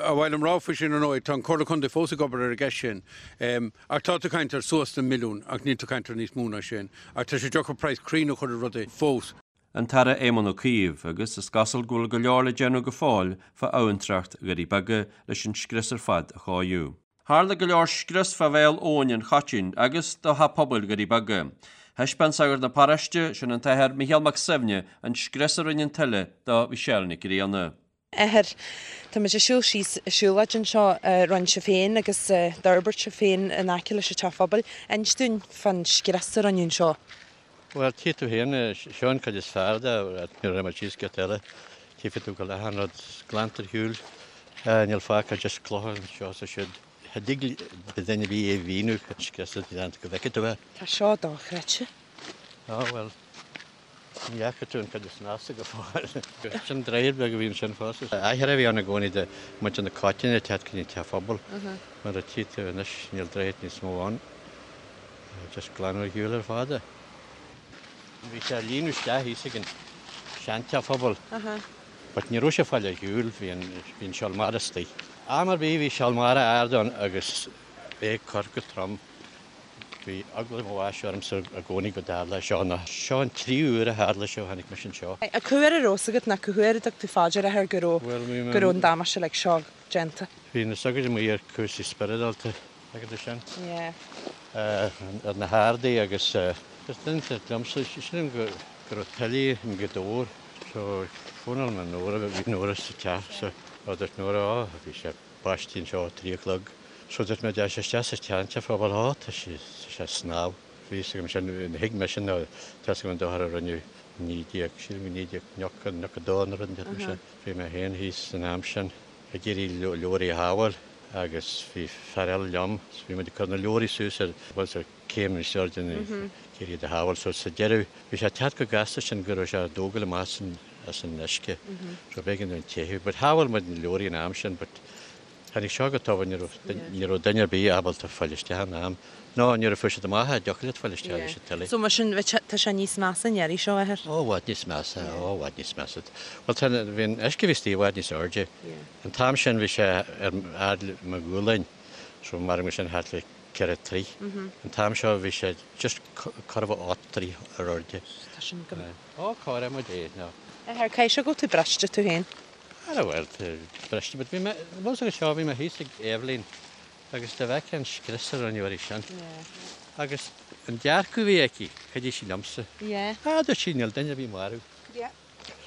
ar mhaith liom rá faoi sin ar ndóigh, tá an Comhairle Contae fós ag obair ar an gceist sin. Ach tá tú ag caint ar suas le milliún ach níl tú ag caint ar níos mó ná sin. Ach tá sé deacair praghas cruinn a chur ar rudaí fós. An tAire Éamon Ó Cuív, agus is cosúil go bhfuil go leor le déanamh go fóill fá abhantracht Dhoirí Beaga leis an scrios ar fad a chóiriú. Tharla go leor scrios fá bhéal abhainn an Choitín agus do theach pobail Dhoirí Beaga. Thaispeáin sagart na paróiste, sin an tAthair Micheál Mac Suibhne, an scrios a rinne an tuile do Mhichelle Nic Grianna. Athair, Tá muid ag siúl síos an siúlóid anseo a rinne sibh féin agus a d'fhorbair sibh féin in aice leis an teach pobail. Inis dúinn fán scrios a rinneadh anseo. Bhuel, tchí tú féin, seo an chuid is fearr de, nuair a raibh muid síos giota eile, tchífidh tú go bhfuil achan rud glanta ar shiúl, níl fágtha just clocha anseo is ansiúd. Cha dtig le duine ar bith é a mhíniú, an scrios atá déanta go bhfeicfidh tú é. Tá seo dochreidte. Á, bhuel, ní fhaca tú an chuid is measa go fóill. Sin droichead beag a bhí ansin fosta. Athair a bhí ann i gcónaí do muintir na Coitíne ag teacht go dtí an teach pobail. Mar a tchí tú anois, níl droichead níos mó ann. Just glanadh ar shiúl ar fad é. Bhí sé ag líonadh isteach thíos ag an seanteach phobail. But ní raibh sé ag fáil ar shiúl, bhí an, bhí an seol mara istigh. Am ar bith bhí seol mara ard ann agus é ag cur go trom. Bhí eagla mo bháis ormsa i gcónaí go dtarlódh seo nó seo an tríú huair a tharla sé ó tháinig mise anseo. Cá huair a raibh fhios agat nó cá huair a dtug tú fá dear athair go raibh, go raibh an damáiste uilig seo déanta? Bhí na sagairt amuigh ar cúrsaí spioradálta. Agus é sin. Yeah. Ar na hardaí agus is duine liomsa, sílim go raibh tuile i nGaoth Dobhair so fónáil mé Nóra, bhí Nóra sa teach so dúirt Nóra ó bhí sé báistí anseo a 3 a chlog so dúirt mé d'fhéach sé isteach sa tseanteach phobail ó tá sé tá sé ag snámh. Bhí fhios agam sin, thuig mise nó tá fhios agam an dochar a rinneadh 19, sílim go 1990, 92 nó rud inteacht mar sin. Bhí mé féin thíos san am sin ag iarraidh leabhraí a shábháil. agus bhí fear eile liom so bhí muid ag cur na leabhraí suas ar bhuel ar céim níos airde ag iarraidh iad a shábháil so sa deireadh bhí sé ag teacht chomh gasta sin go raibh sé ag dógáil amach as an as an uisce so b'éigean dúinn teitheadh but shábháil muid na leabhraí an am sin but tháinig seo go tobann ní raibh ní raibh duine ar bith ábalta fáil isteach in am nó nuair a fuair siad amach é dtiocfadh leat fáil isteach leis an tuile. So mar sin tá sé níos measa an iarraidh seo, athair? Ó i bhfad níos measa, ó i bhfad níos measa. Bhuel tá bhí an uisce a bhí istigh i bhfad níos airde. An t-am sin bhí sé ar fhad le mo ghualainn, so maram sin thart le 4 troigh. An t-am seo bhí sé just corradh 8 dtroigh ar airde. Tá sin go. Ó, cóireoidh muid é nó. Athair, caithfidh sé go bhfuil tú briste tú féin. Ara bhuel, tá briste, but bhí mé, bhfuil fhios agat seo, bhí mé thíos ag Eibhlín agus dá bhfeicfeá an scrios a rinneadh uirthi sin. Agus an dearcadh a bhí aici, chuidigh sí liomsa. Ah, dúirt sí, níl duine ar bith marbh.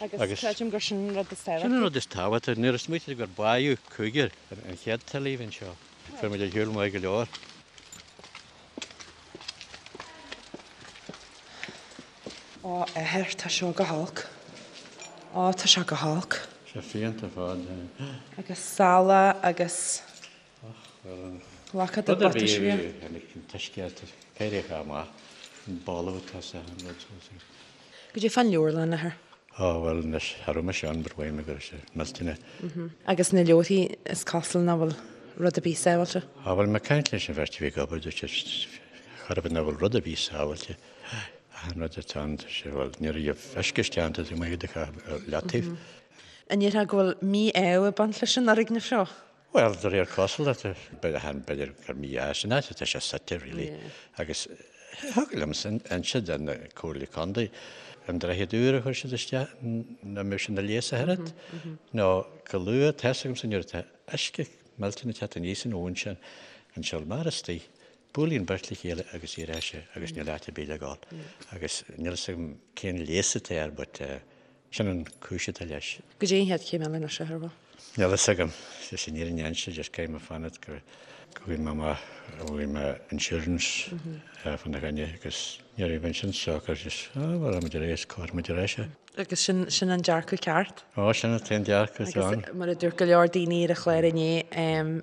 Agus creidim gur sin an rud is tábhachtaí. Sin an rud is tábhachtaí. Nuair a smaoitigh gur báitheadh cúigear an chéad tuile a bhí anseo, fuair muid ar shiúl maith go leor. Ó, athair, tá seo go holc. Ó, tá seo go holc. Sé fiánta ar fad. Agus salach agus. Och, bhuel. Ghlacfá do Rud ar bith bhuataisí. a bhí tháinig an t-uisce éireoidh amach an balbh atá sa an rud so. Goidé fán leabharlann, a Athair. Ó bhuel anois cha raibh mise ann but mhaígh mé go raibh sé millteanach. Agus na leabharthaí is cosúil nach bhfuil rud ar bith sábháilte. Á bhuel mé ag caint leis an bheirt a bhí ag obair dúirt siad chor ar bith nach bhfuil rud ar bith sábháilte. Achan rud atá ann tá sé bhuel ní raibh uisce isteach ann tá tú amuigh i do chaitheamh ar leataobh. An ndéarfá go bhfuil mí-ádh ag baint leis an fhoirgneamh seo? Bhuel, de réir cosúlachta, b'fhéidir gur mí-ádh san áit atá sé suite, really. Agus thig liomsa inse do na Comhairle Contae an droichead úr a chuir siad isteach nach mbeadh sé ina leigheas ach oiread. Nó go luath, tá fhios agamsa nuair atá uisce millteanach ag teacht aníos an abhainn sin, an siúl mar istigh, buaileann beirt le chéile agus éireoidh sé agus níl áit ar bith le dhul. Agus níl fhios agam cén leigheas atá air but Sin an cúis atá leis. Goidé an chéad chéim eile anois, a Athair? Níl fhios agam. Is an fhírinne a inse, just caithfidh mé fanacht go bhfaighidh mé amach, go bhfaighidh mé insurance fána choinne agus nuair a bheidh sin socair just, ah, bhuel, rachaidh muid ar aghaidh is cuirfidh muid ar ais é. Agus sin, sin an dearcadh ceart. Ó, sin an t-aon dearcadh atá ann. Agus mar a dúirt go leor daoine ar an chlár inné,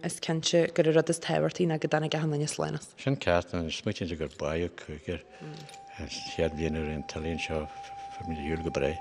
is cinnte gur an rud is tábhachtaí ná go dtáinig achan duine slán as. Sin ceart, an smaoitíonn tú gur báitheadh cúigear. An chéad bhliain a raibh an tuile anseo, fuair muid ar shiúl go breá.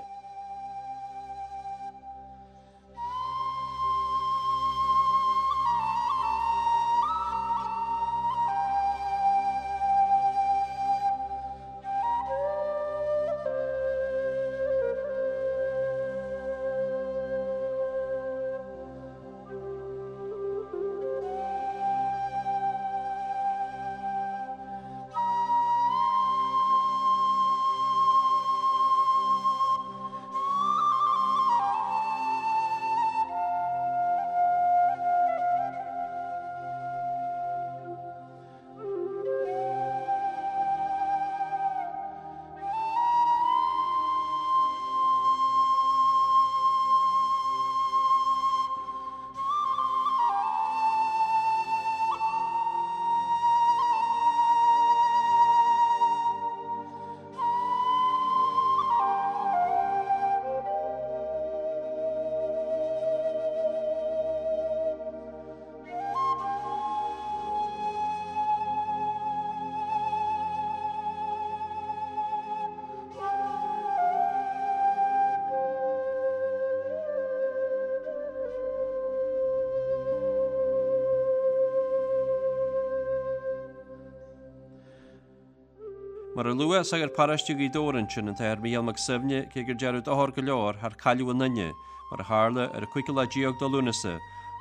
Mar a luadh, sagart paróiste Ghaoth Dobhair ansin, an tAthair Mícheál Mac Suibhne, cé gur dearnadh dochar go leor thar cailleadh aon duine, mar a tharla ar an cúigiú lá déag de Lúnasa,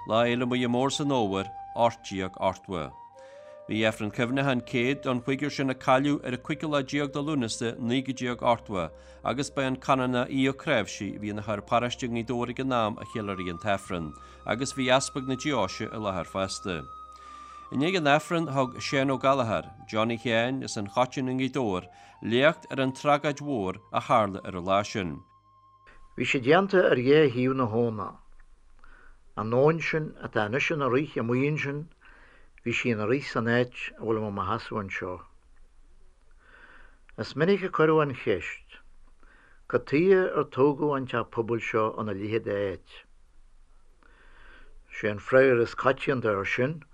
Lá Fhéile Muire Mór san Fhómhar, 1880. Bhí Aifreann Cuimhneacháin 100 don chúigear sin a cailleadh ar an cúigiú lá déag de Lúnasa 1980 agus ba é an Canónach Aodh Ó Cnáimhsí a bhí ina shagart paróiste i nGaoth Dobhair ag an am a cheiliúraigh an tAifreann agus bhí Easpag na Deoise i láthair fosta. I ndiaidh an Aifrinn thug Seán Ó Gallchóir, Johnny Sheáin as an Choitín i nGaoth Dobhair, léacht ar an tragóid mhór a tharla ar an lá sin. Bhí sé déanta ar dhá thaobh na habhna. An abhainn sin atá anois ina rith amuigh ansin, bhí sí ina rith san áit a bhfuil mé mo sheasamh anseo. Is minic a cuireadh an cheist, cad tuighe ar tógadh an teach pobail seo ina leithéid de áit? Sé an freagra is coitianta air sin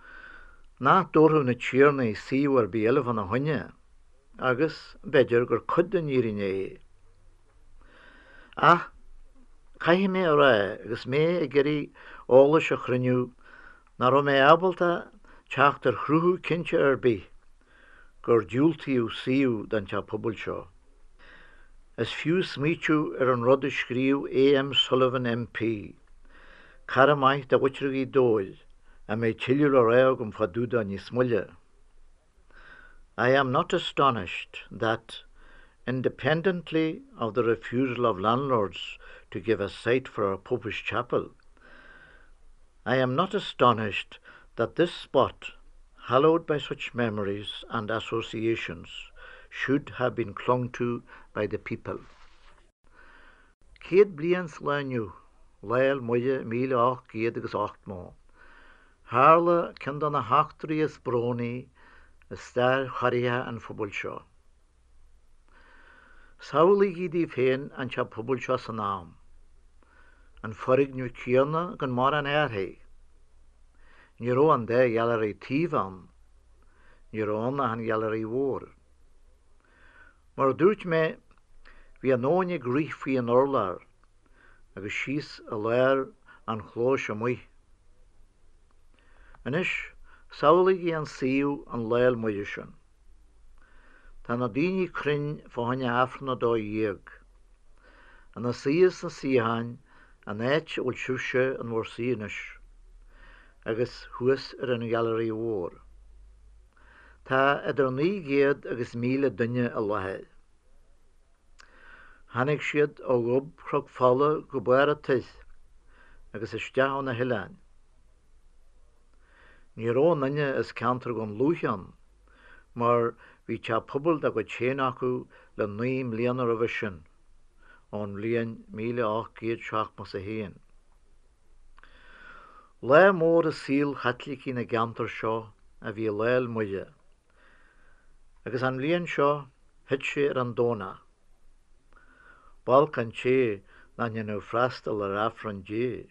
nach dtabharfadh na tiarnaí suíomh ar bith eile fána choinne, agus b'fhéidir gur cuid den fhírinne é. Ach, caithfidh mé a rá, agus mé ag iarraidh eolais a chruinniú, nach raibh mé ábalta teacht ar chruthú cinnte ar bith gur diúltaíodh suíomh don teach pobail seo. Is fiú smaoitiú ar an rud a scríobh A.M. Sullivan MP, cara maith de mhuintir Ghaoth Dobhair, a mbeidh tuilleadh le rá agam fá dtaobh dó níos moille. I am not astonished that, independently of the refusal of landlords to give a site for a popish chapel, I am not astonished that this spot, hallowed by such memories and associations, should have been clung to by the people. 100 bliain sa lá inniu, Lá Fhéil Muire 1880, tharla ceann de na heachtraí is brónaí i stair chorraitheach an phobail seo. Samhlaígí daoibh féin an teach pobail seo san am. An foirgneamh céanna gan mórán athraithe. Ní raibh an dá ghailearaí taoibh ann. Ní raibh ann ach an ghailearaí mhór. Mar a dúirt mé, bhí an abhainn ag rith faoi an urlár agus síos i lár an chlóis amuigh. Anois, samhlaígí an suíomh an Lá 'le Muire sin. Tá na daoine cruinn fá choinne Aifreann a 12, ina suí sna suíocháin an áit a bhfuil sibhse in bhur suí anois, agus thuas ar an ghailearaí mhór. Tá idir 900 agus 1,000 duine i láthair. Tháinig siad ó ghob Chnoc Fola go barr an toir agus isteach ó na hoileáin. Ní raibh aon duine as ceantar Dhún Lúiche ann mar bhí teach pobail dá gcuid féin acu le 9 mbliana roimhe sin, ón bhliain 1871. Lá mór i saol Chaitlicigh na gceantar seo a bhí i Lá 'le Muire, agus an bhliain seo thit sé ar an Domhnach. B'olc an té nach ndéanadh freastal ar Aifreann Dé.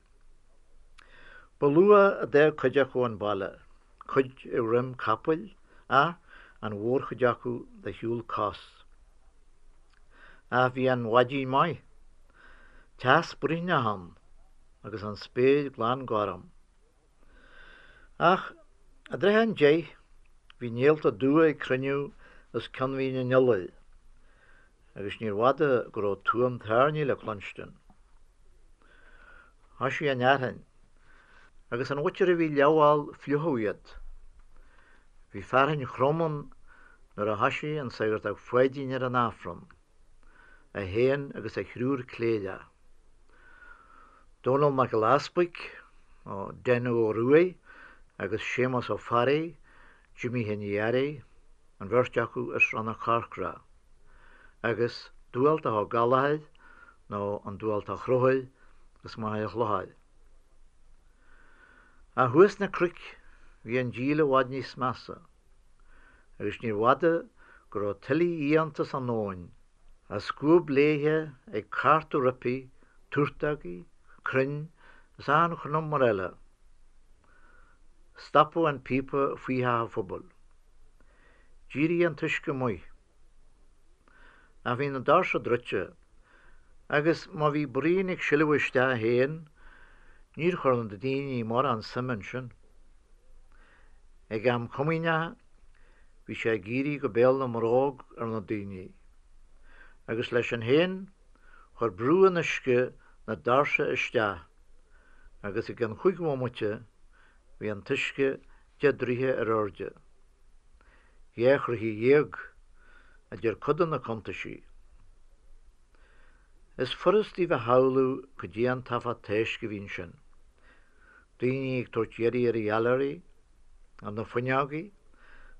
Ba luath a d'fhág cuid acu an baile, cuid ar dhroim capaill ach an mhórchuid acu de shiúl cos. Ach bhí an mhaidin maith, teas bruithneach ann agus an spéir glan gorm. Ach i dtrátha an deich bhí néalta dubha ag cruinniú os cionn Mhín an Iolair agus níorbh fhada go raibh tuam tairní le cluinstin. Thoisigh an fhearthainn, agus an mhuintir a bhí leamhbhall fliuchadh iad. Bhí fearthainn throm ann nuair a thoisigh an Saghartach Pháidín ar an Aifreann, é féin agus a thriúr cléireach, Dónall Mac Giolla Easbuig, nó Den Ó Ruaidh, agus Séamus Ó Fearraigh, Jimí Sheáin Uí Fhearraigh, an bheirt acu as Srath na Corcra, agus Dubhaltach Ó Gallchóir, nó an Dubhaltach Chonchúir, as Machaire Chlochair. Ach thuas sna cnoic bhí an díol i bhfad níos measa, agus níorbh fhada go raibh tuile fhiánta san abhainn, á scuab léithe ag cartadh roimpi turtógaí, crainn is achan chnumar eile. Stopadh an píopa faoi theach an phobail. D'éirigh an t-uisce amuigh. Ach bhí na doirse druidte, agus má bhí braon ag sileadh isteach féin, níor chuir na daoine mórán suime ansin. Ag am comaoineach, bhí sé ag éirí go béal na mbróg ar na daoine, agus leis sin féin, chuir brú an uisce na doirse isteach, agus i gcionn chúig bhomaite, bhí an t-uisce deich dtroithe ar airde. 12 throighe, a deir cuid de na cuntaisí. Is furast daoibh a shamhlú cad é an t-uafás toisc a bhí ansin. Daoine ag tabhairt iarraidh ar an ghailearaí, ar na fuinneogaí,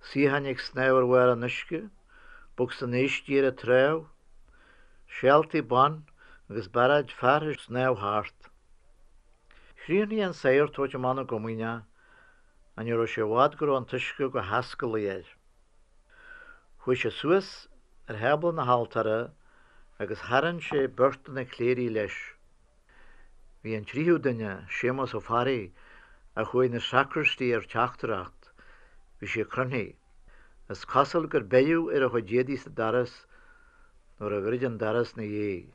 suíocháin ag snámh ar bharr an uisce, bocsa báistí ar an trá, seáltaí ban agus barráid fear ag snámh thart. Chríochnaigh an sagart tabhairt amach na gcomaoineach ach ní raibh sé i bhfad go raibh an t-uisce go hascaillí air. Chuaigh sé suas ar thábla na haltóra agus tharraing sé beirt de na cléirigh leis. Bhí an tríú duine, Séamus Ó Fearraigh, a chuaigh 'na sacraistí ar teachtaireacht, bhí sé croimthe. Is cosúil gur beireadh ar a chuid éadaí sa doras nuair a dhruid an doras 'na dhiaidh.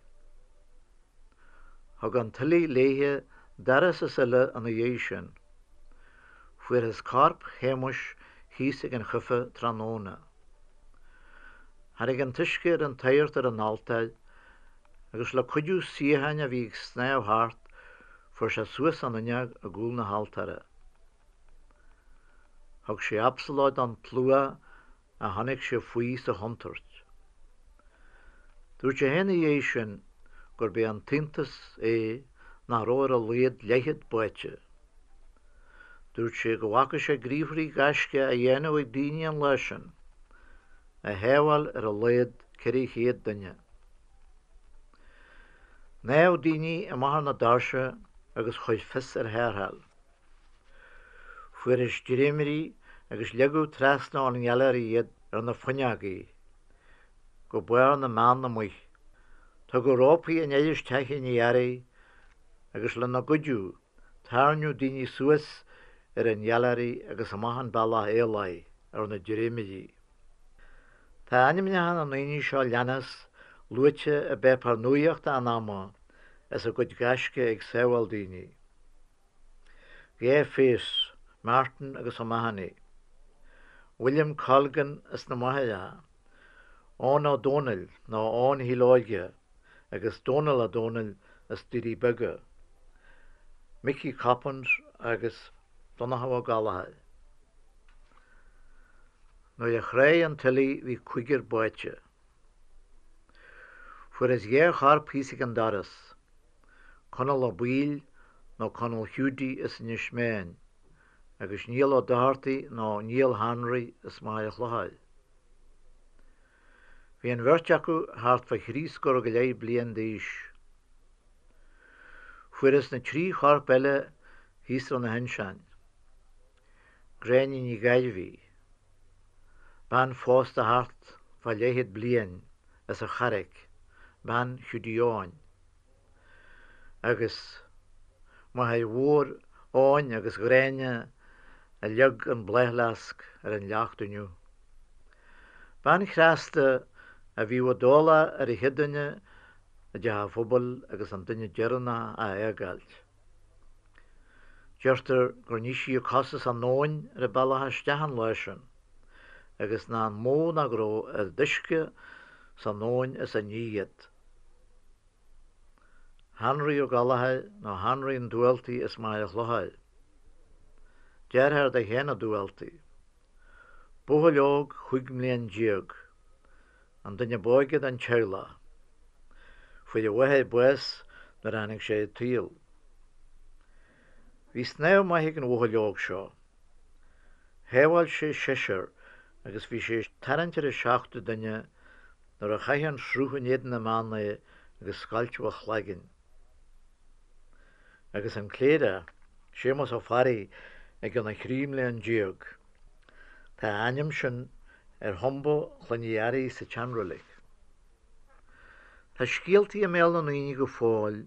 Thug an tuile léithe doras is uile ina dhiaidh sin. Fuarthas corp Shéamuis thíos ag an chuife tráthnóna. Tháinig an t-uisce ar an tsagart ar an altóir agus le cuidiú suíocháin a bhí ag snámh thart fuair sé suas an fhuinneog i gcúl na haltóra. Thug sé absalóid don tslua a chonaic sé faoi sa chontúirt. Dúirt sé féin ina dhiaidh sin gurb é an t-iontas é nach raibh ar a laghad leathchéad báite. Dúirt sé go bhfaca sé gníomharthaí gaisce á dhéanamh ag daoine an lá sin, a shábháil ar a laghad 400 duine. Shnámh daoine amach ar na doirse agus chuir fios ar tharrtháil. Fuarthas dréimirí agus leagadh trasna ón nGailearaí iad ar na fuinneogaí go barr na mbeann amuigh. Tugadh rópaí aniar as teachín Uí Fhearraigh agus lena gcuidiú tarraingeadh daoine suas ar an Ghealáirí agus amach an bealach aolaigh ar na dréimirí. Tá ainmneacha na ndaoine seo leanas luaite i bpáipéar nuaíochta an ama as a gcuid gaisce ag sábháil daoine. Gay Face, Martin agus O'Mahony, William Colgan as na Machaireacha, Eoin Ó Dónaill nó Eoin Shíl Óige agus Dónal Ó Dónaill as Doirí Beaga, Mickey Coppins agus Donnchadh Ó Gallchóir. Nuair a chráigh an tuile bhí cúigear báite. Fuarthas dhá chorp thíos ag an doras, Conall Ó Baoill nó Conall Hiúdaí as Inis Meáin agus Niall Ó Dochartaigh nó Niall Henry as Machaire Chlochair. Bhí an bheirt acu thart fá thrí scór go leith bliain d'aois. Fuarthas na trí chorp eile thíos ar na hinseáin. Gráinne Ní Ghairbhí, bean phósta thart fá leathchéad bliain as an Charraic, bean Hiúdaí Eoin, agus máthair mhór Eoin agus Ghráinne a leag an bláthfhleasc ar an leacht inniu. Bean chneasta a bhíodh i dtoghlach ar an chéad duine i dteach an phobail agus an duine deireanach á fhágáilt. Deirtear gur nigh sí a cosa san abhainn ar a bealach isteach an lá sin, agus nach mó ná go raibh oiread uisce san abhainn is a nigh iad. Henry Ó Gallchóir nó Henry an Dubhaltaigh as Machaire Chlochair. Deartháir do Sheán Ó Dubhaltaigh. Buachaill óg chúig mblian déag. An duine b'óige den teaghlach. Fuair a mháthair bás nuair a tháinig sé ar an tsaol. Bhí snámh maith ag an bhuachaill óg seo. Shábháil sé seisear agus bhí sé ag tarraingt ar an seachtú duine nuair a chaith an sruth in éadan na mbeann é agus scoilteadh a chlaigeann. Agus an cléireach, Séamus Ó Fearraigh i gcionn a thrí mblian déag. Tá a ainm sin ar thumba Chloinn Uí Fhearraigh sa tSeanreilig. Tá scéaltaí i mbéal na ndaoine go fóill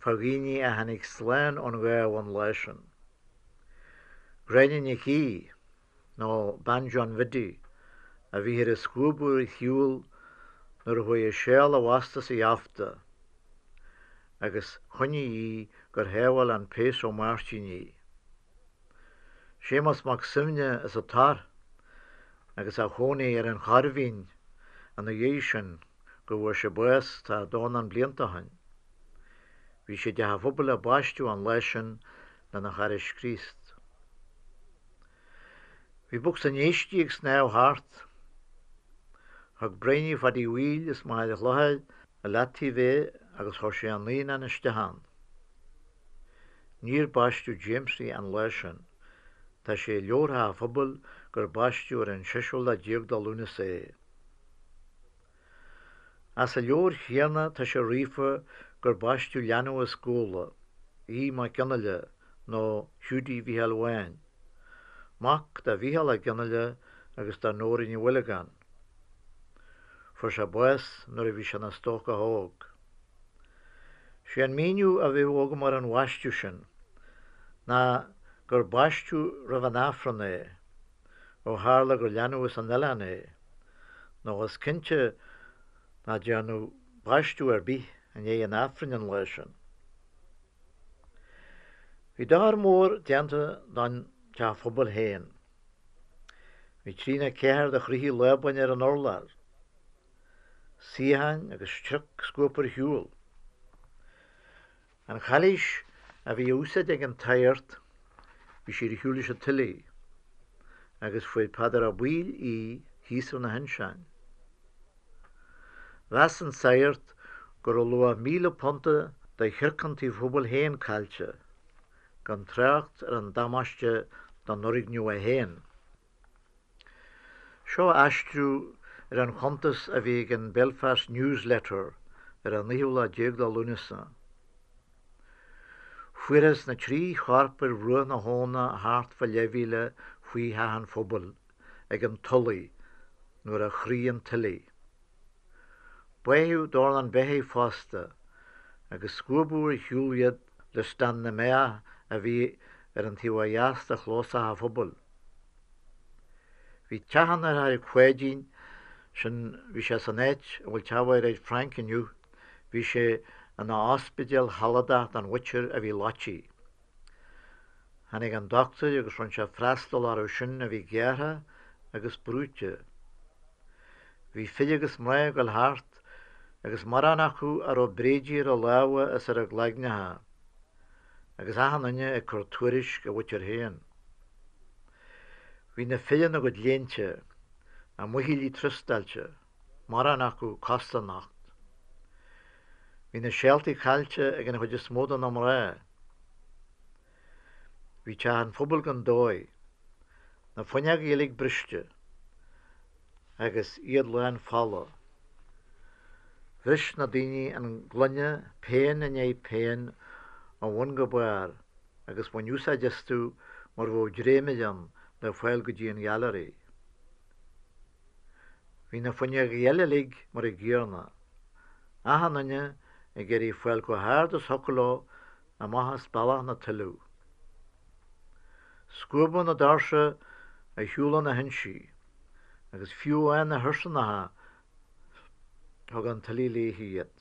fá dhaoine a tháinig slán ón ghábh an lá sin. Gráinne Nic Aoidh, nó bean John Bhiddy, a bhíthear ag scuabadh ar shiúl nuair a chuaigh a seál i bhfostas a gheafta agus choinnigh í gur shábháil an Péas Ó Máirtín í. Séamus Mac Suibhne as an Tor agus a chónaí ar an Choirbhín ina dhiaidh sin go bhfuair sé bás tá dornán blianta ó shin. Bhí sé i dteach an phobail á baisteadh an lá sin lena chara Críost. Bhí bocsa an éisc ag snámh thart. Thug Briony Phadaí Bhaoill as Machaire Chlochair i leataobh é agus chuir sé a naíonán isteach ann. Níor baisteadh Jamesie an lá sin. Tá sé i leabhar an phobail gur baisteadh ar an seisiú lá déag de Lúnasa é. As an leabhar chéanna tá sé ríofa gur baisteadh leanbh as Gabhla, Aodh Mac Fhionnghaile nó Hiúdaí Mhícheáil Bháin, mac do Mhícheál Ó Fhionnghaile agus do Nóra Ní Mhuilleagáin. Fuair sé bás nuair a bhí sé ina stócach óg. Sé an míniú a bheadh agam ar an bhaisteadh sin ná gur baisteadh roimh an Aifreann é, ó tharla gur leanbh as an oileán é, nó is cinnte ná dearnadh baisteadh ar bith i ndiaidh an Aifrinn an lá sin. Bhí dochar mór déanta don teach phobail féin. Bhí trí nó ceathair de chrochaí lábain ar an urlár. suíocháin agus trioc scuabtha ar shiúl. An chailís a bhí á úsáid ag an tsaghart, bhí sí ar shiúl leis an tuile, agus fuair Peadar Ó Baoill í thíos ar na hinseáin. Mheas an saghart go raibh luach £1,000 de shiorc an tí phobail féin caillte, gan trácht ar an damáiste don fhoirgneamh é féin. Seo aistriú ar an chuntas a bhí ag an Belfast News Letter ar an naoú lá déag de Lúnasa. Fuarthas na trí chorp ar bhruach na habhna thart fá leathmhíle faoi theach an phobail ag an Tulaigh nuair a chraith an tuile. Báitheadh dornán beithígh fosta agus scuabadh ar shiúl iad le stán na mbeach a bhí ar an taobh ó dheas de chlós Theach an Phobail. Bhí teach an deartháir Pháidín, sin, bhí sé san áit a bhfuil teach Mhairéad Frainc inniu, bhí sé ina ospidéal shealadach don mhuintir a bhí loití. Tháinig an dochtúir agus rinne sé freastal orthu sin a bhí gearrtha agus brúite. Bhí fir agus mná ag dul thart agus mórán acu a raibh bréidí ar a lámha is ar a gcloigneacha, agus achan duine ag cur tuairisc a mhuintir féin. Bhí na fir ina gcuid léinte, a muichillí trostáilte, mórán acu cosa-nocht. Bhí na seáltaí caillte ag an chuid is mó de na mná. Bhí teach an phobail gan dóigh, na fuinneogaí uilig briste agus iad lán fola. Bhris na daoine an gloine pian i ndiaidh pian ó bhun go barr agus bhain úsáid astu mar bheadh dréimire ann le fáil go dtí an ghailearaí. Bhí na fuinneogaí eile uilig mar a gcéanna, achan duine ag iarraidh fáil chomh hard is thiocfadh leo amach as bealach na tuileadh. Scuabadh na doirse ar shiúl ó na hinsí agus fiú amháin na hursanacha thug an tuile léi iad.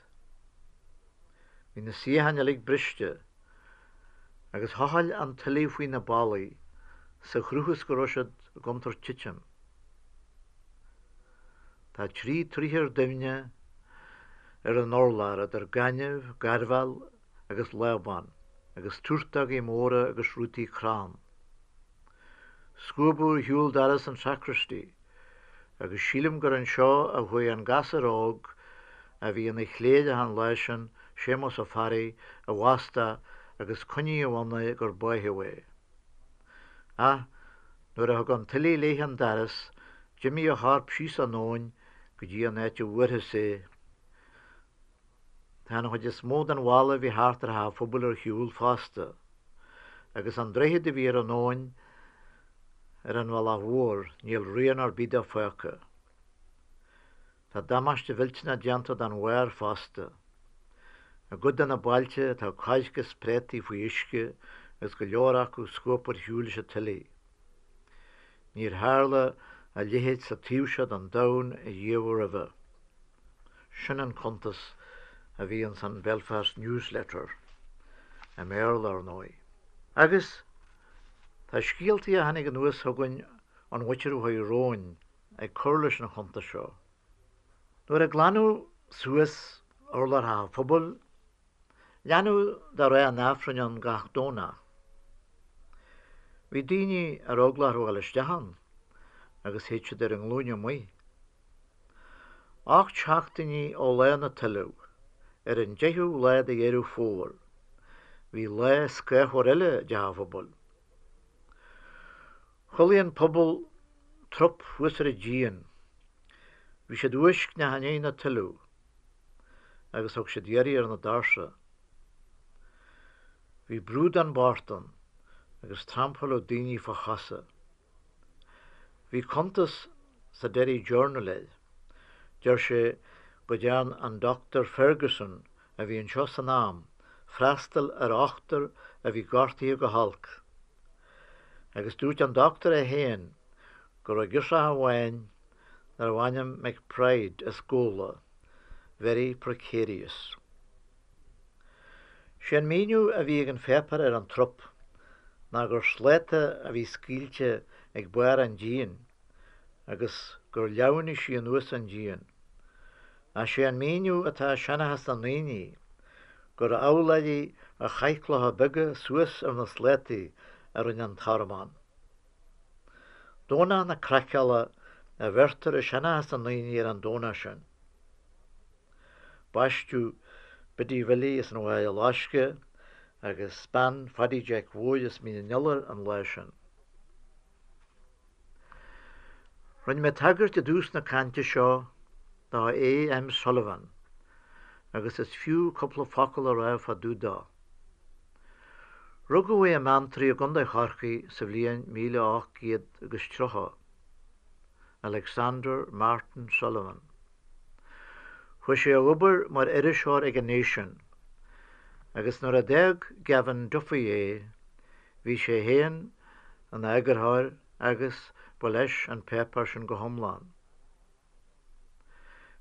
Bhí na suíocháin uilig briste agus thochail an tuile faoi na ballaí sa chruth is go raibh siad i gcontúirt titim. Tá trí troigh ar doimhne ar an urlár idir gaineamh, gairbheal agus lábán agus túrtógaí móra agus rútaí crann. Scuabadh ar shiúl doras an sacristy agus sílim gur anseo a chuaigh an gasúr óg a bhí ina chléireach an lá sin, Séamus Ó Fearraigh, i bhfostach agus coinníodh ann é gur báitheadh é. Ach nuair a thug an tuile léi an doras, d'imigh a chorp síos an abhainn go dtí an áit a bhfuarthas é. Tá an chuid is mó den bhalla a bhí thart ar theach an phobail ar shiúl fosta, agus an droichead a bhí ar an abhainn ar an bhealach mhór, níl rian ar bith de fágtha. Tá damáiste mhillteanach déanta don bharr fosta. I gcuid de na bailte tá coirce is préataí faoi uisce agus go leor acu scuabtha ar shiúl leis an tuile. Níor tharla a leithéid sa taobh seo den domhan ariamh roimhe. Sin an cuntas a bhí ins an Belfast News Letter, i mBéarla, ar ndóigh. Agus tá scéaltaí a tháinig anuas chugainn ón mhuintir a chuaigh romhainn ag cur leis an chuntas seo. Nuair a glanadh suas urlár Theach an Phobail, leanadh de rá an Aifrinn ann gach Domhnach. Bhí daoine ar eagla orthu a dhul isteach ann agus théid siad ar a nglúine amuigh. 8 seachtainí ó lá na tuileadh, ar an 10ú lá de Dheireadh Fómhair, bhí lá scáthmhar eile i dTeach an Phobail. Chodlaigh an pobal trup thuas ar an díon. Bhí siad uaiscneach i ndiaidh na tuileadh agus thug siad iarraidh ar na doirse. Bhí brúdán bocht ann agus trampáladh daoine fá chosa. Bhí cuntas sa Derry Journal air. Deir sé go dtearn an Dr Ferguson a bhí anseo san am freastal ar ochtar a bhí gortaithe go holc. Agus dúirt an doctor é féin go raibh girseach amháin darbh ainm McBride as Gabhla very precarious. Sé an míniú a bhí ag an pháipéar ar an trup ná gur sláta a bhí scaoilte ag barr an díon agus gur leamhnaigh sí anuas an díon. Ach sé an míniú atá i seanchas na ndaoine gur abhláirí a chaith clocha beaga suas ar na slátaí a rinne an tormán. Domhnach na Craiceála a bheirtear i seanchas na ndaoine ar an Domhnach sin. Baisteadh Biddy Bhilly as an Bhaile Loiscthe agus bean Phaddy Jeaic Mhóir as Mín an Iolair an lá sin. Rinne mé tagairt i dtús na cainte seo do A.M. Sullivan agus is fiú cúpla focal a rá fá dtaobh dó. Rugadh é i mBeanntraí i gContae Chorcaí sa bhliain 1830. Alexander Martin Sullivan. Chuaigh sé a obair mar iriseoir ag an Nation agus nuair a d'fhág Gavin Duffy é, Bhí sé féin ina eagarthóir agus ba leis an páipéar sin go hiomlán.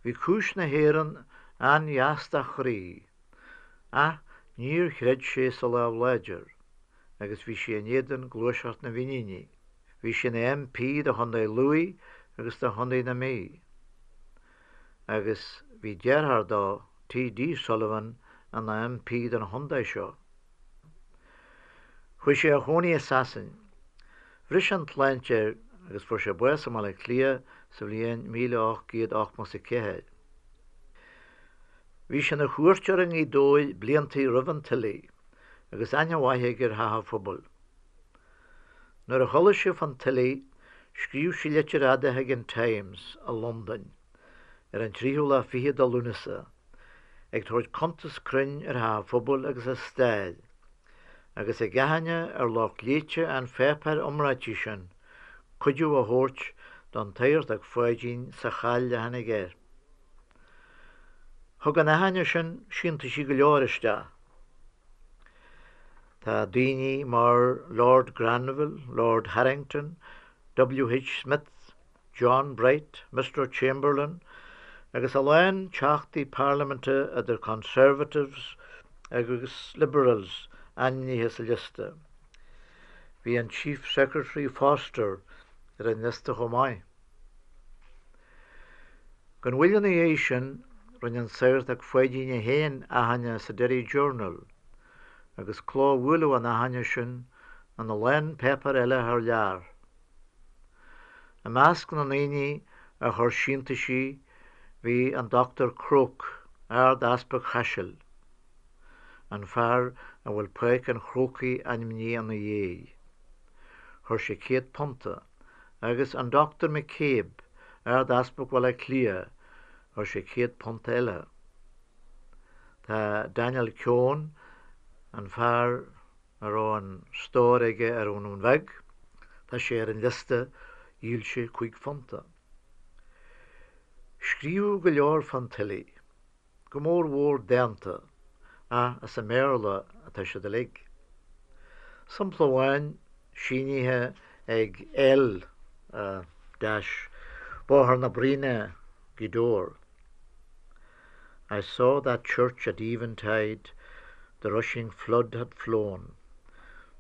Bhí cúis na hÉireann an-dheas dá chroí, ach níor chreid sé sa lámh láidir agus bhí sé in éadan gluaiseacht na bhFíníní. Bhí sé ina MP do Chontae Lú agus do Chontae na Mí agus bhí deartháir dó, T.D. Sullivan, ina MP don chontae seo. Chuaigh sé a chónaí i Sasain. Bhris an tsláinte air agus fuair sé bás i mBaile Átha Cliath sa bhliain 1884. Bhí sé ina chuairteoir i nGaoth Dobhair bliantaí roimh an tuile agus aithne mhaith aige ar Theach an Phobail. Nuair a chuala sé fán tuile scríobh sé litir fhada chuig an Times i Londain ar an tríú lá fichead de Lúnasa ag tabhairt cuntas cruinn ar Theach an Phobail agus a stair, agus ag achainí ar lucht léite an pháipéir iomráitigh sin cuidiú a thabhairt don tSagartach Pháidín sa chaill a tháinig air. Thug an achainí sin síntiúisí go leor isteach. Tá daoine mar Lord Granville, Lord Harrington, W. H. Smith, John Bright, Mister Chamberlain agus a lán teachtaí parlaiminte idir Conservatives agus Liberals ainmnithe sa liosta. Bhí an Chief Secretary Foster ar an liosta chomh maith. Gan mhoill ina dhiaidh sin rinne an Sagartach Pháidín é féin achainí sa Derry Journal agus clóbhuaileadh an achainí sin ina lán páipéar eile thar lear. I measc na ndaoine a chuir síntiúisí bhí an Dr Croke, Ard-Easpag Chaisil, an fear a bhfuil Páirc an Chrócaigh ainmnithe ina dhiaidh. Chuir sé £100, agus an Dr McCabe, Ard-Easpag Bhaile Átha Cliath, chuir sé £100 eile. Tá Daniel Keown, an fear a raibh an stór aige ar an nDún Bheag, tá sé ar an liosta, dhíol sé £5. Scríobhadh go leor fán tuile, go mór mhór dánta, ach as an mBéarla atá siad uilig. Sampla amháin, sínithe ag L. dash, Bóthar na Bruíne, Gaoth Dobhair. I saw that church at eventide The rushing flood had flown,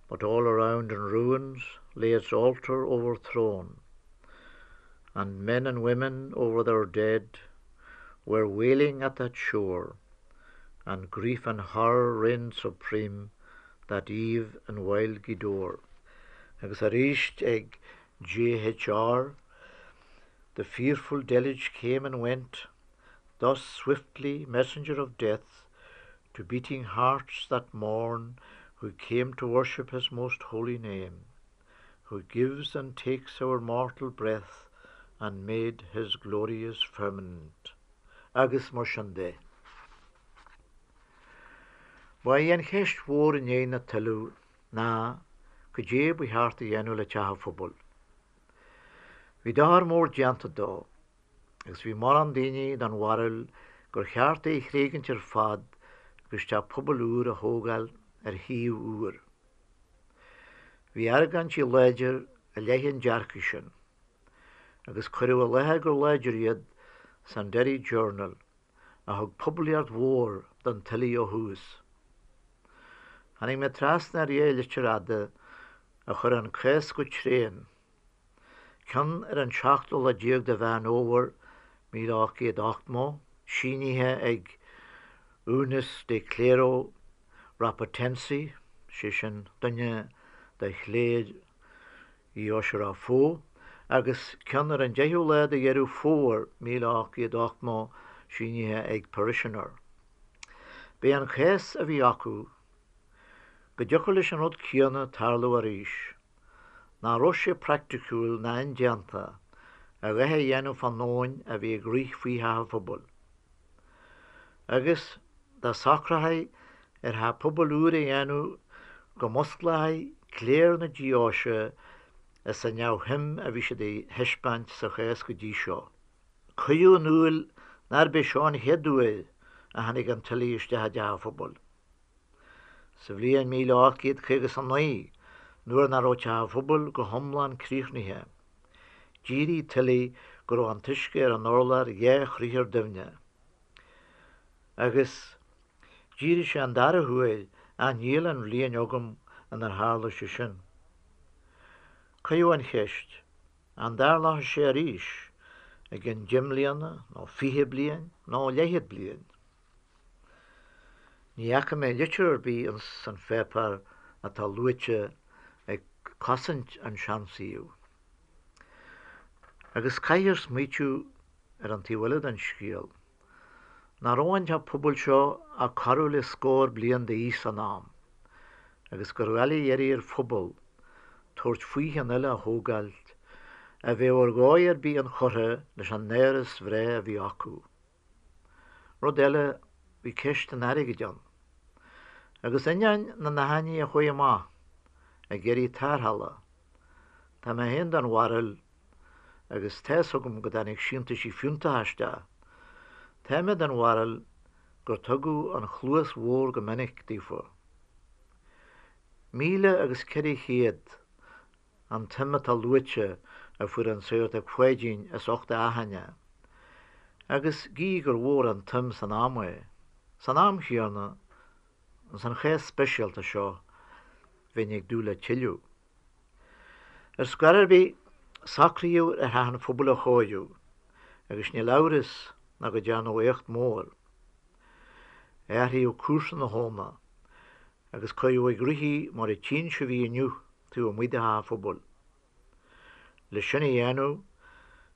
But all around in ruins Lay its altar overthrown, And men and women over their dead Were wailing at that shore, And grief and horror reigned supreme That eve in wild Gweedore. Agus arís ag J.H.R. The fearful deluge came and went Thus swiftly, messenger of death, To beating hearts that morn Who came to worship his most holy name, Who gives and takes our mortal breath And made his glorious firmament. Agus mar sin de. Ba í an cheist mhór i ndiaidh na tuile ná cad é ba cheart a dhéanamh le Teach an Phobail. Bhí dochar mór déanta dó agus bhí mórán daoine den bharúil gur cheart é a thréigint ar fad agus teach pobail úr a thógáil ar shuíomh úr. Bhí argóintí láidir i leith an dearcaidh sin agus cuireadh i láthair go láidir iad san Derry Journal a thug poiblíocht mhór don tuile ó thús. Tháinig mé trasna ar dhá litir fhada a chuir an cás go tréan, ceann ar an seachtú lá déag de Mheán Fhómhair 1880, sínithe ag Unus de Clero Rapotensi, sé sin duine de chléir Uí Oisir Fó, agus ceann ar an deichiú lá de Dheireadh Fómhair 1880, sínithe ag Parishioner. B'é an cás a bhí acu go dtiocfadh leis an rud céanna tarlú arís, nach raibh sé praiticiúil ná indéanta a dhath a dhéanamh fán abhainn a bhí ag rith faoi theach an phobail. Agus dá socrófaí ar theach pobail úr a dhéanamh go musclófaí cléir na deoise as an neamhshuim a bhí siad a thaispeáint sa chás go dtí seo. Cuireadh in iúl nárb é seo an chéad uair a tháinig an tuile isteach i dteach an phobail. Sa bhliain 1859. Nuair nach raibh Teach an Phobail go hiomlán críochnaithe, d'éirigh tuile go raibh an t-uisce ar an urlár dheá chriathar doimhne. Agus d'éirigh sé an dara huair ach níl an bhliain agam inar tharla sé sin. Cuireadh an cheist, an dtarlódh sé arís i gcionn deich mbliana nó 20 bliain nó leathchéad bliain? Ní fhaca mé litir ar bith ins an pháipéar atá luaite ag cosaint an seansuíomh. Agus caithfear smaoitiú ar an taobh eile den scéal. Nach raibh an teach pobail seo ach corradh le scór bliain d'aois san am, agus gur dhoiligh iarraidh ar phobal tabhairt faoi cheann eile a thógáilt a bheadh ar dhóigh ar bith inchurtha leis an áras bhreá a bhí acu. Rud eile, bhí ceist an airgid ann. Agus ainneoin na n-achainí a chuaigh amach ag iarraidh tarrthála, tá mé féin den bharúil, agus tá's agam go dtáinig síntiúisí fiúntacha isteach, tá mé den bharúil gur tugadh an chluas bhodhar go minic daofa. 1400 an tsuim atá luaite a fuair an Sagartach Pháidín as ucht a achaine, agus gídh gur mhór an tsuim san am é, san am chéanna, ins an chás speisialta seo, bheinn ag dúil le tuilleadh. Ar scor ar bith, socraíodh ar Theach an Phobail a chóiriú, agus níl amhras ná go dtearnadh éacht mór. Athraíodh cúrsa na habhna, agus cuireadh ag rith í mar a tchíonn sibh í inniu taobh amuigh de Theach an Phobail. Le sin a dhéanamh,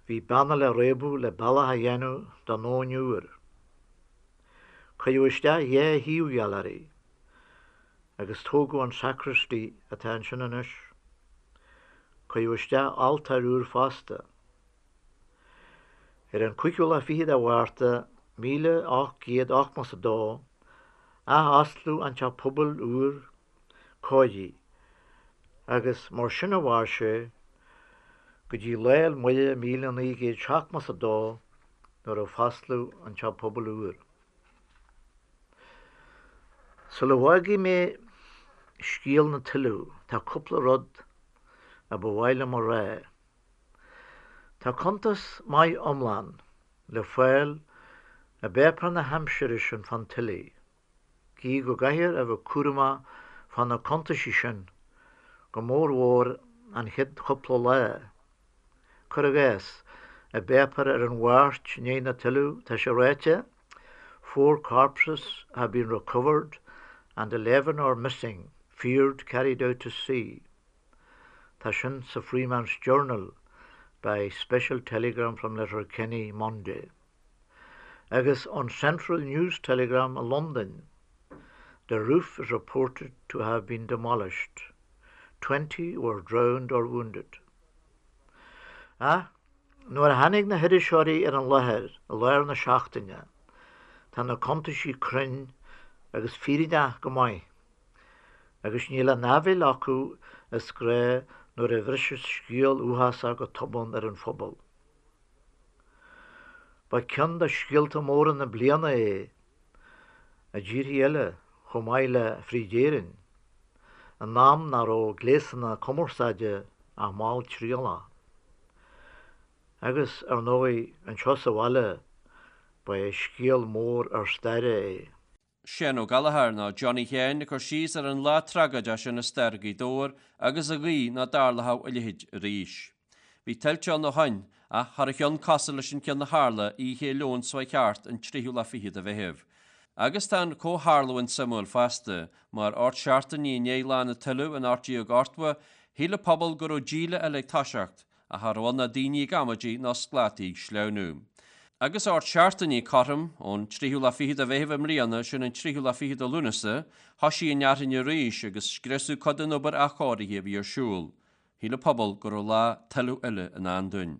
bhí beanna le réabadh le bealach a dhéanamh don abhainn úr. Cuireadh isteach dhá thaobhghailearaí agus tógadh an sacristy atá ansin anois. Cuireadh isteach altóir úr fosta. Ar an cúigiú lá fichead de Mhárta 1882, athosclaíodh an Teach Pobail úr cóirithe agus mar sin a mhair sé go dtí Lá 'le Muire 1972 nuair a fosclaíodh an Teach Pobail úr. Sula bhfágfaidh mé scéal na tuile tá cúpla rud a ba mhaith liom a rá. Tá cuntas maith iomlán le fáil i bpáipéar na haimsire sin fán tuile. Gídh go gcaithfear a bheith cúramach fá na cuntaisí sin, go mór mhór an chéad chúpla lá. Cuir i gcás, i bpáipéar ar an Mháirt i ndiaidh na tuile tá sé ráite, Four corpses have been recovered and 11 are missing, feared carried out to sea. Tá sin sa Freeman's Journal by special telegram from Letterkenny Monday. Agus ón Central News Telegram i Londain, The roof is reported to have been demolished. 20 were drowned or wounded. Ach nuair a tháinig na hiriseoirí ar an láthair i lár na seachtaine, tá na cuntaisí cruinn agus fírinneach go maith. Agus níl an áibhéil acu is gnách nuair a bhriseas scéal uafásach go tobann ar an phobal. Ba ceann de scéalta móra na bliana é i dtíorthaí eile chomh maith le fríd Éirinn, in am nach raibh gléasanna cumarsáide ach malltriallach. Agus, ar ndóigh, anseo sa bhaile, ba é scéal mór ár staire é. Seán Ó Gallchóir, nó Johnny Sheáin, ag cur síos ar an lá tragóideach sin i stair Ghaoth Dobhair agus a ghuí ná dtarlódh a leithéid arís. Bhí tuilte ann ó shoin, ach cha raibh ceann cosúil leis an ceann a tharla oíche Fhéile Eoin seo chuaigh thart, an tríú lá fichead de Mheitheamh. Agus tá an comhtharlúint suimiúil fosta, mar ocht seachtainí i ndiaidh lá na tuile in 1880, shíl an pobal go raibh díle eile ag toiseacht, Ach cha raibh ann ach daoine ag amaidí ná sclátaí ag sleamhnú. Agus ocht seachtainí cothrom, ón tríú lá fichead de Mheitheamh i mbliana, sin an tríú lá fichead de Lúnasa, thoisigh an fhearthainn arís agus scriosadh cuid den obair athchóirithe a bhí ar siúl. Shíl an pobal go raibh lá tuile eile i ndán dúinn.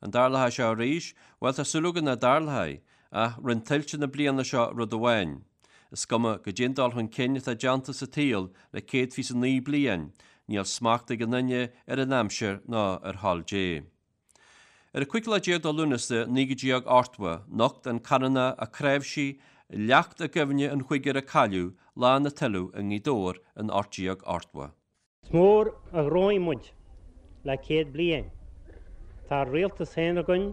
An dtarlóidh sé arís? Bhuel, tá súil againn nach dtarlóidh. Ach rinne tuilte na bliana seo rud amháin. Is cuma goidé an dul chun cinn atá déanta sa tsaol le 129 bliain, níl smacht ag an nduine ar an aimsir ná ar thoil Dé. Ar an cúigiú lá déag de Lúnasa 1980, nocht an Canónach Ó Cnáimhsí leacht i gcuimhne an chúigir a cailleadh lá na tuile i nGaoth Dobhair in 1880. Is mór a ghnóthaigh muid le 100 bliain. Tá ár rialtas féin againn,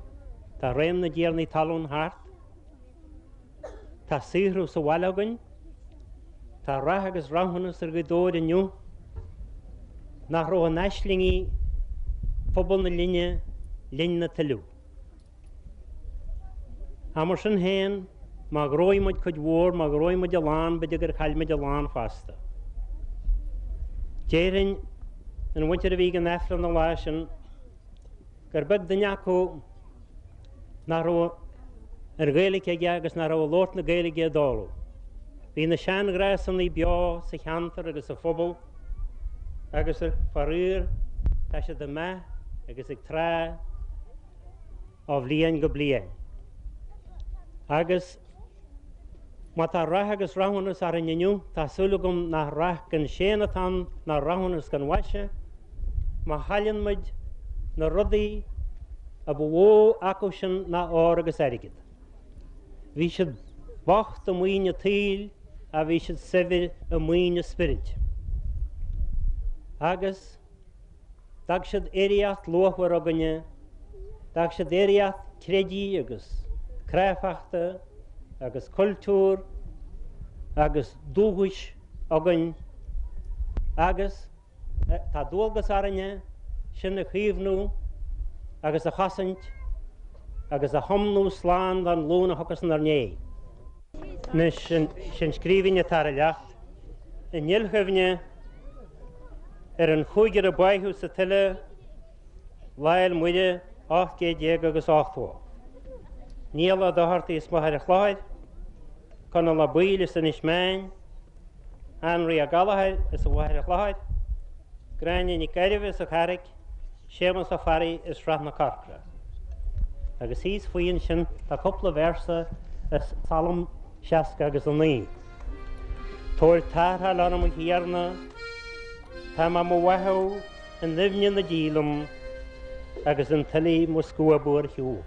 tá réim na dtiarnaí talún thart, tá saothrú sa bhaile againn, tá rath agus rathúnas ar Ghaoth Dobhair inniu nach raibh in aislingí phobal na linne linn na tuilleadh. Ach mar sin féin, má ghnóthaigh muid cuid mhór, má ghnóthaigh muid a lán, b'fhéidir gur chaill muid a lán fosta. Déarfainn, an mhuintir a bhí ag an Aifreann an lá sin, gur beag duine acu nach raibh an Ghaeilge aige agus nach raibh ag labhairt na Gaeilge i dtólamh. Bhí na seanghnásanna beo sa cheantar agus sa phobal agus, faraor, tá siad ag meath agus ag trá ó bhliain go bliain. Agus má tá rath agus rathúnas orainn inniu, tá súil agam nach rath gan séan atá ann ná rathúnas gan mhaise, má chailleann muid na rudaí a ba mhó acu sin ná ór agus airgead. Bhí siad bocht i maoin an tsaoil ach bhí siad saibhir i maoin a spioraid. Agus. D'fhág siad oidhreacht luachmhar againne, d'fhág siad oidhreacht creidimh agus cráifeachta agus cultúir agus dúchais againn agus tá dualgas orainne sin a chaomhnú agus a chosaint agus a thiomnú slán don ghlúin a thiocfas inár ndiaidh. Anois, sin scríbhinn atá ar an leacht i ndilchuimhne ar an chúigear a báitheadh sa tuile Lá Fhéil Muire 18 gcéad agus 80. Niall Ó Dochartaigh as Machaire Chlochair, Conall Ó Baoill as Inis Meáin, Anraí Ó Gallchóir as an Mhachaire Chlochair, Gráinne Nic Gairbheith as an Charraic, Séamus Ó Fearraigh as Srath na Corcra. Agus thíos faoi ansin tá cúpla véarsa as Salm 60 agus 9. Tabhair tarrtháil orm a Thiarna, tá mé mo bháthadh i ndoimhne na díleann agus an tuile mo scuabadh ar shiúl.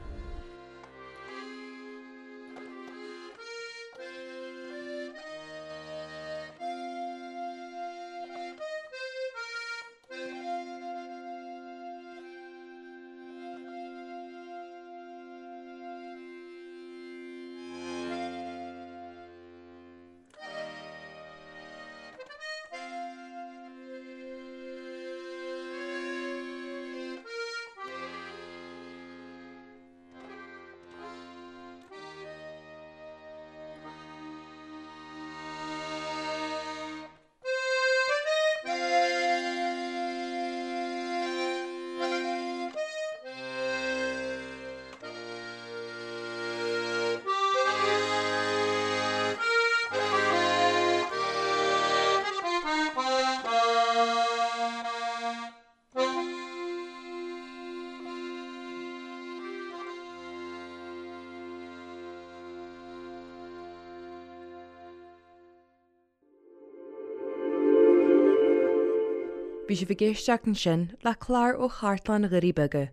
Bhí sibh ag éisteacht ansin le clár ó Chartlann Dhoirí Beaga,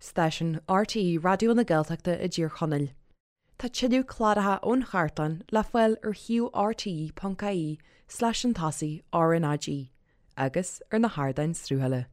stáisiún RTÉ Raidió na Gaeltachta i dTír Chonaill. Tá tuilleadh cláracha ón chartlann le fáil ar shuíomh rte.ie slash an tosaigh RnaG agus ar na hardáin sruthála.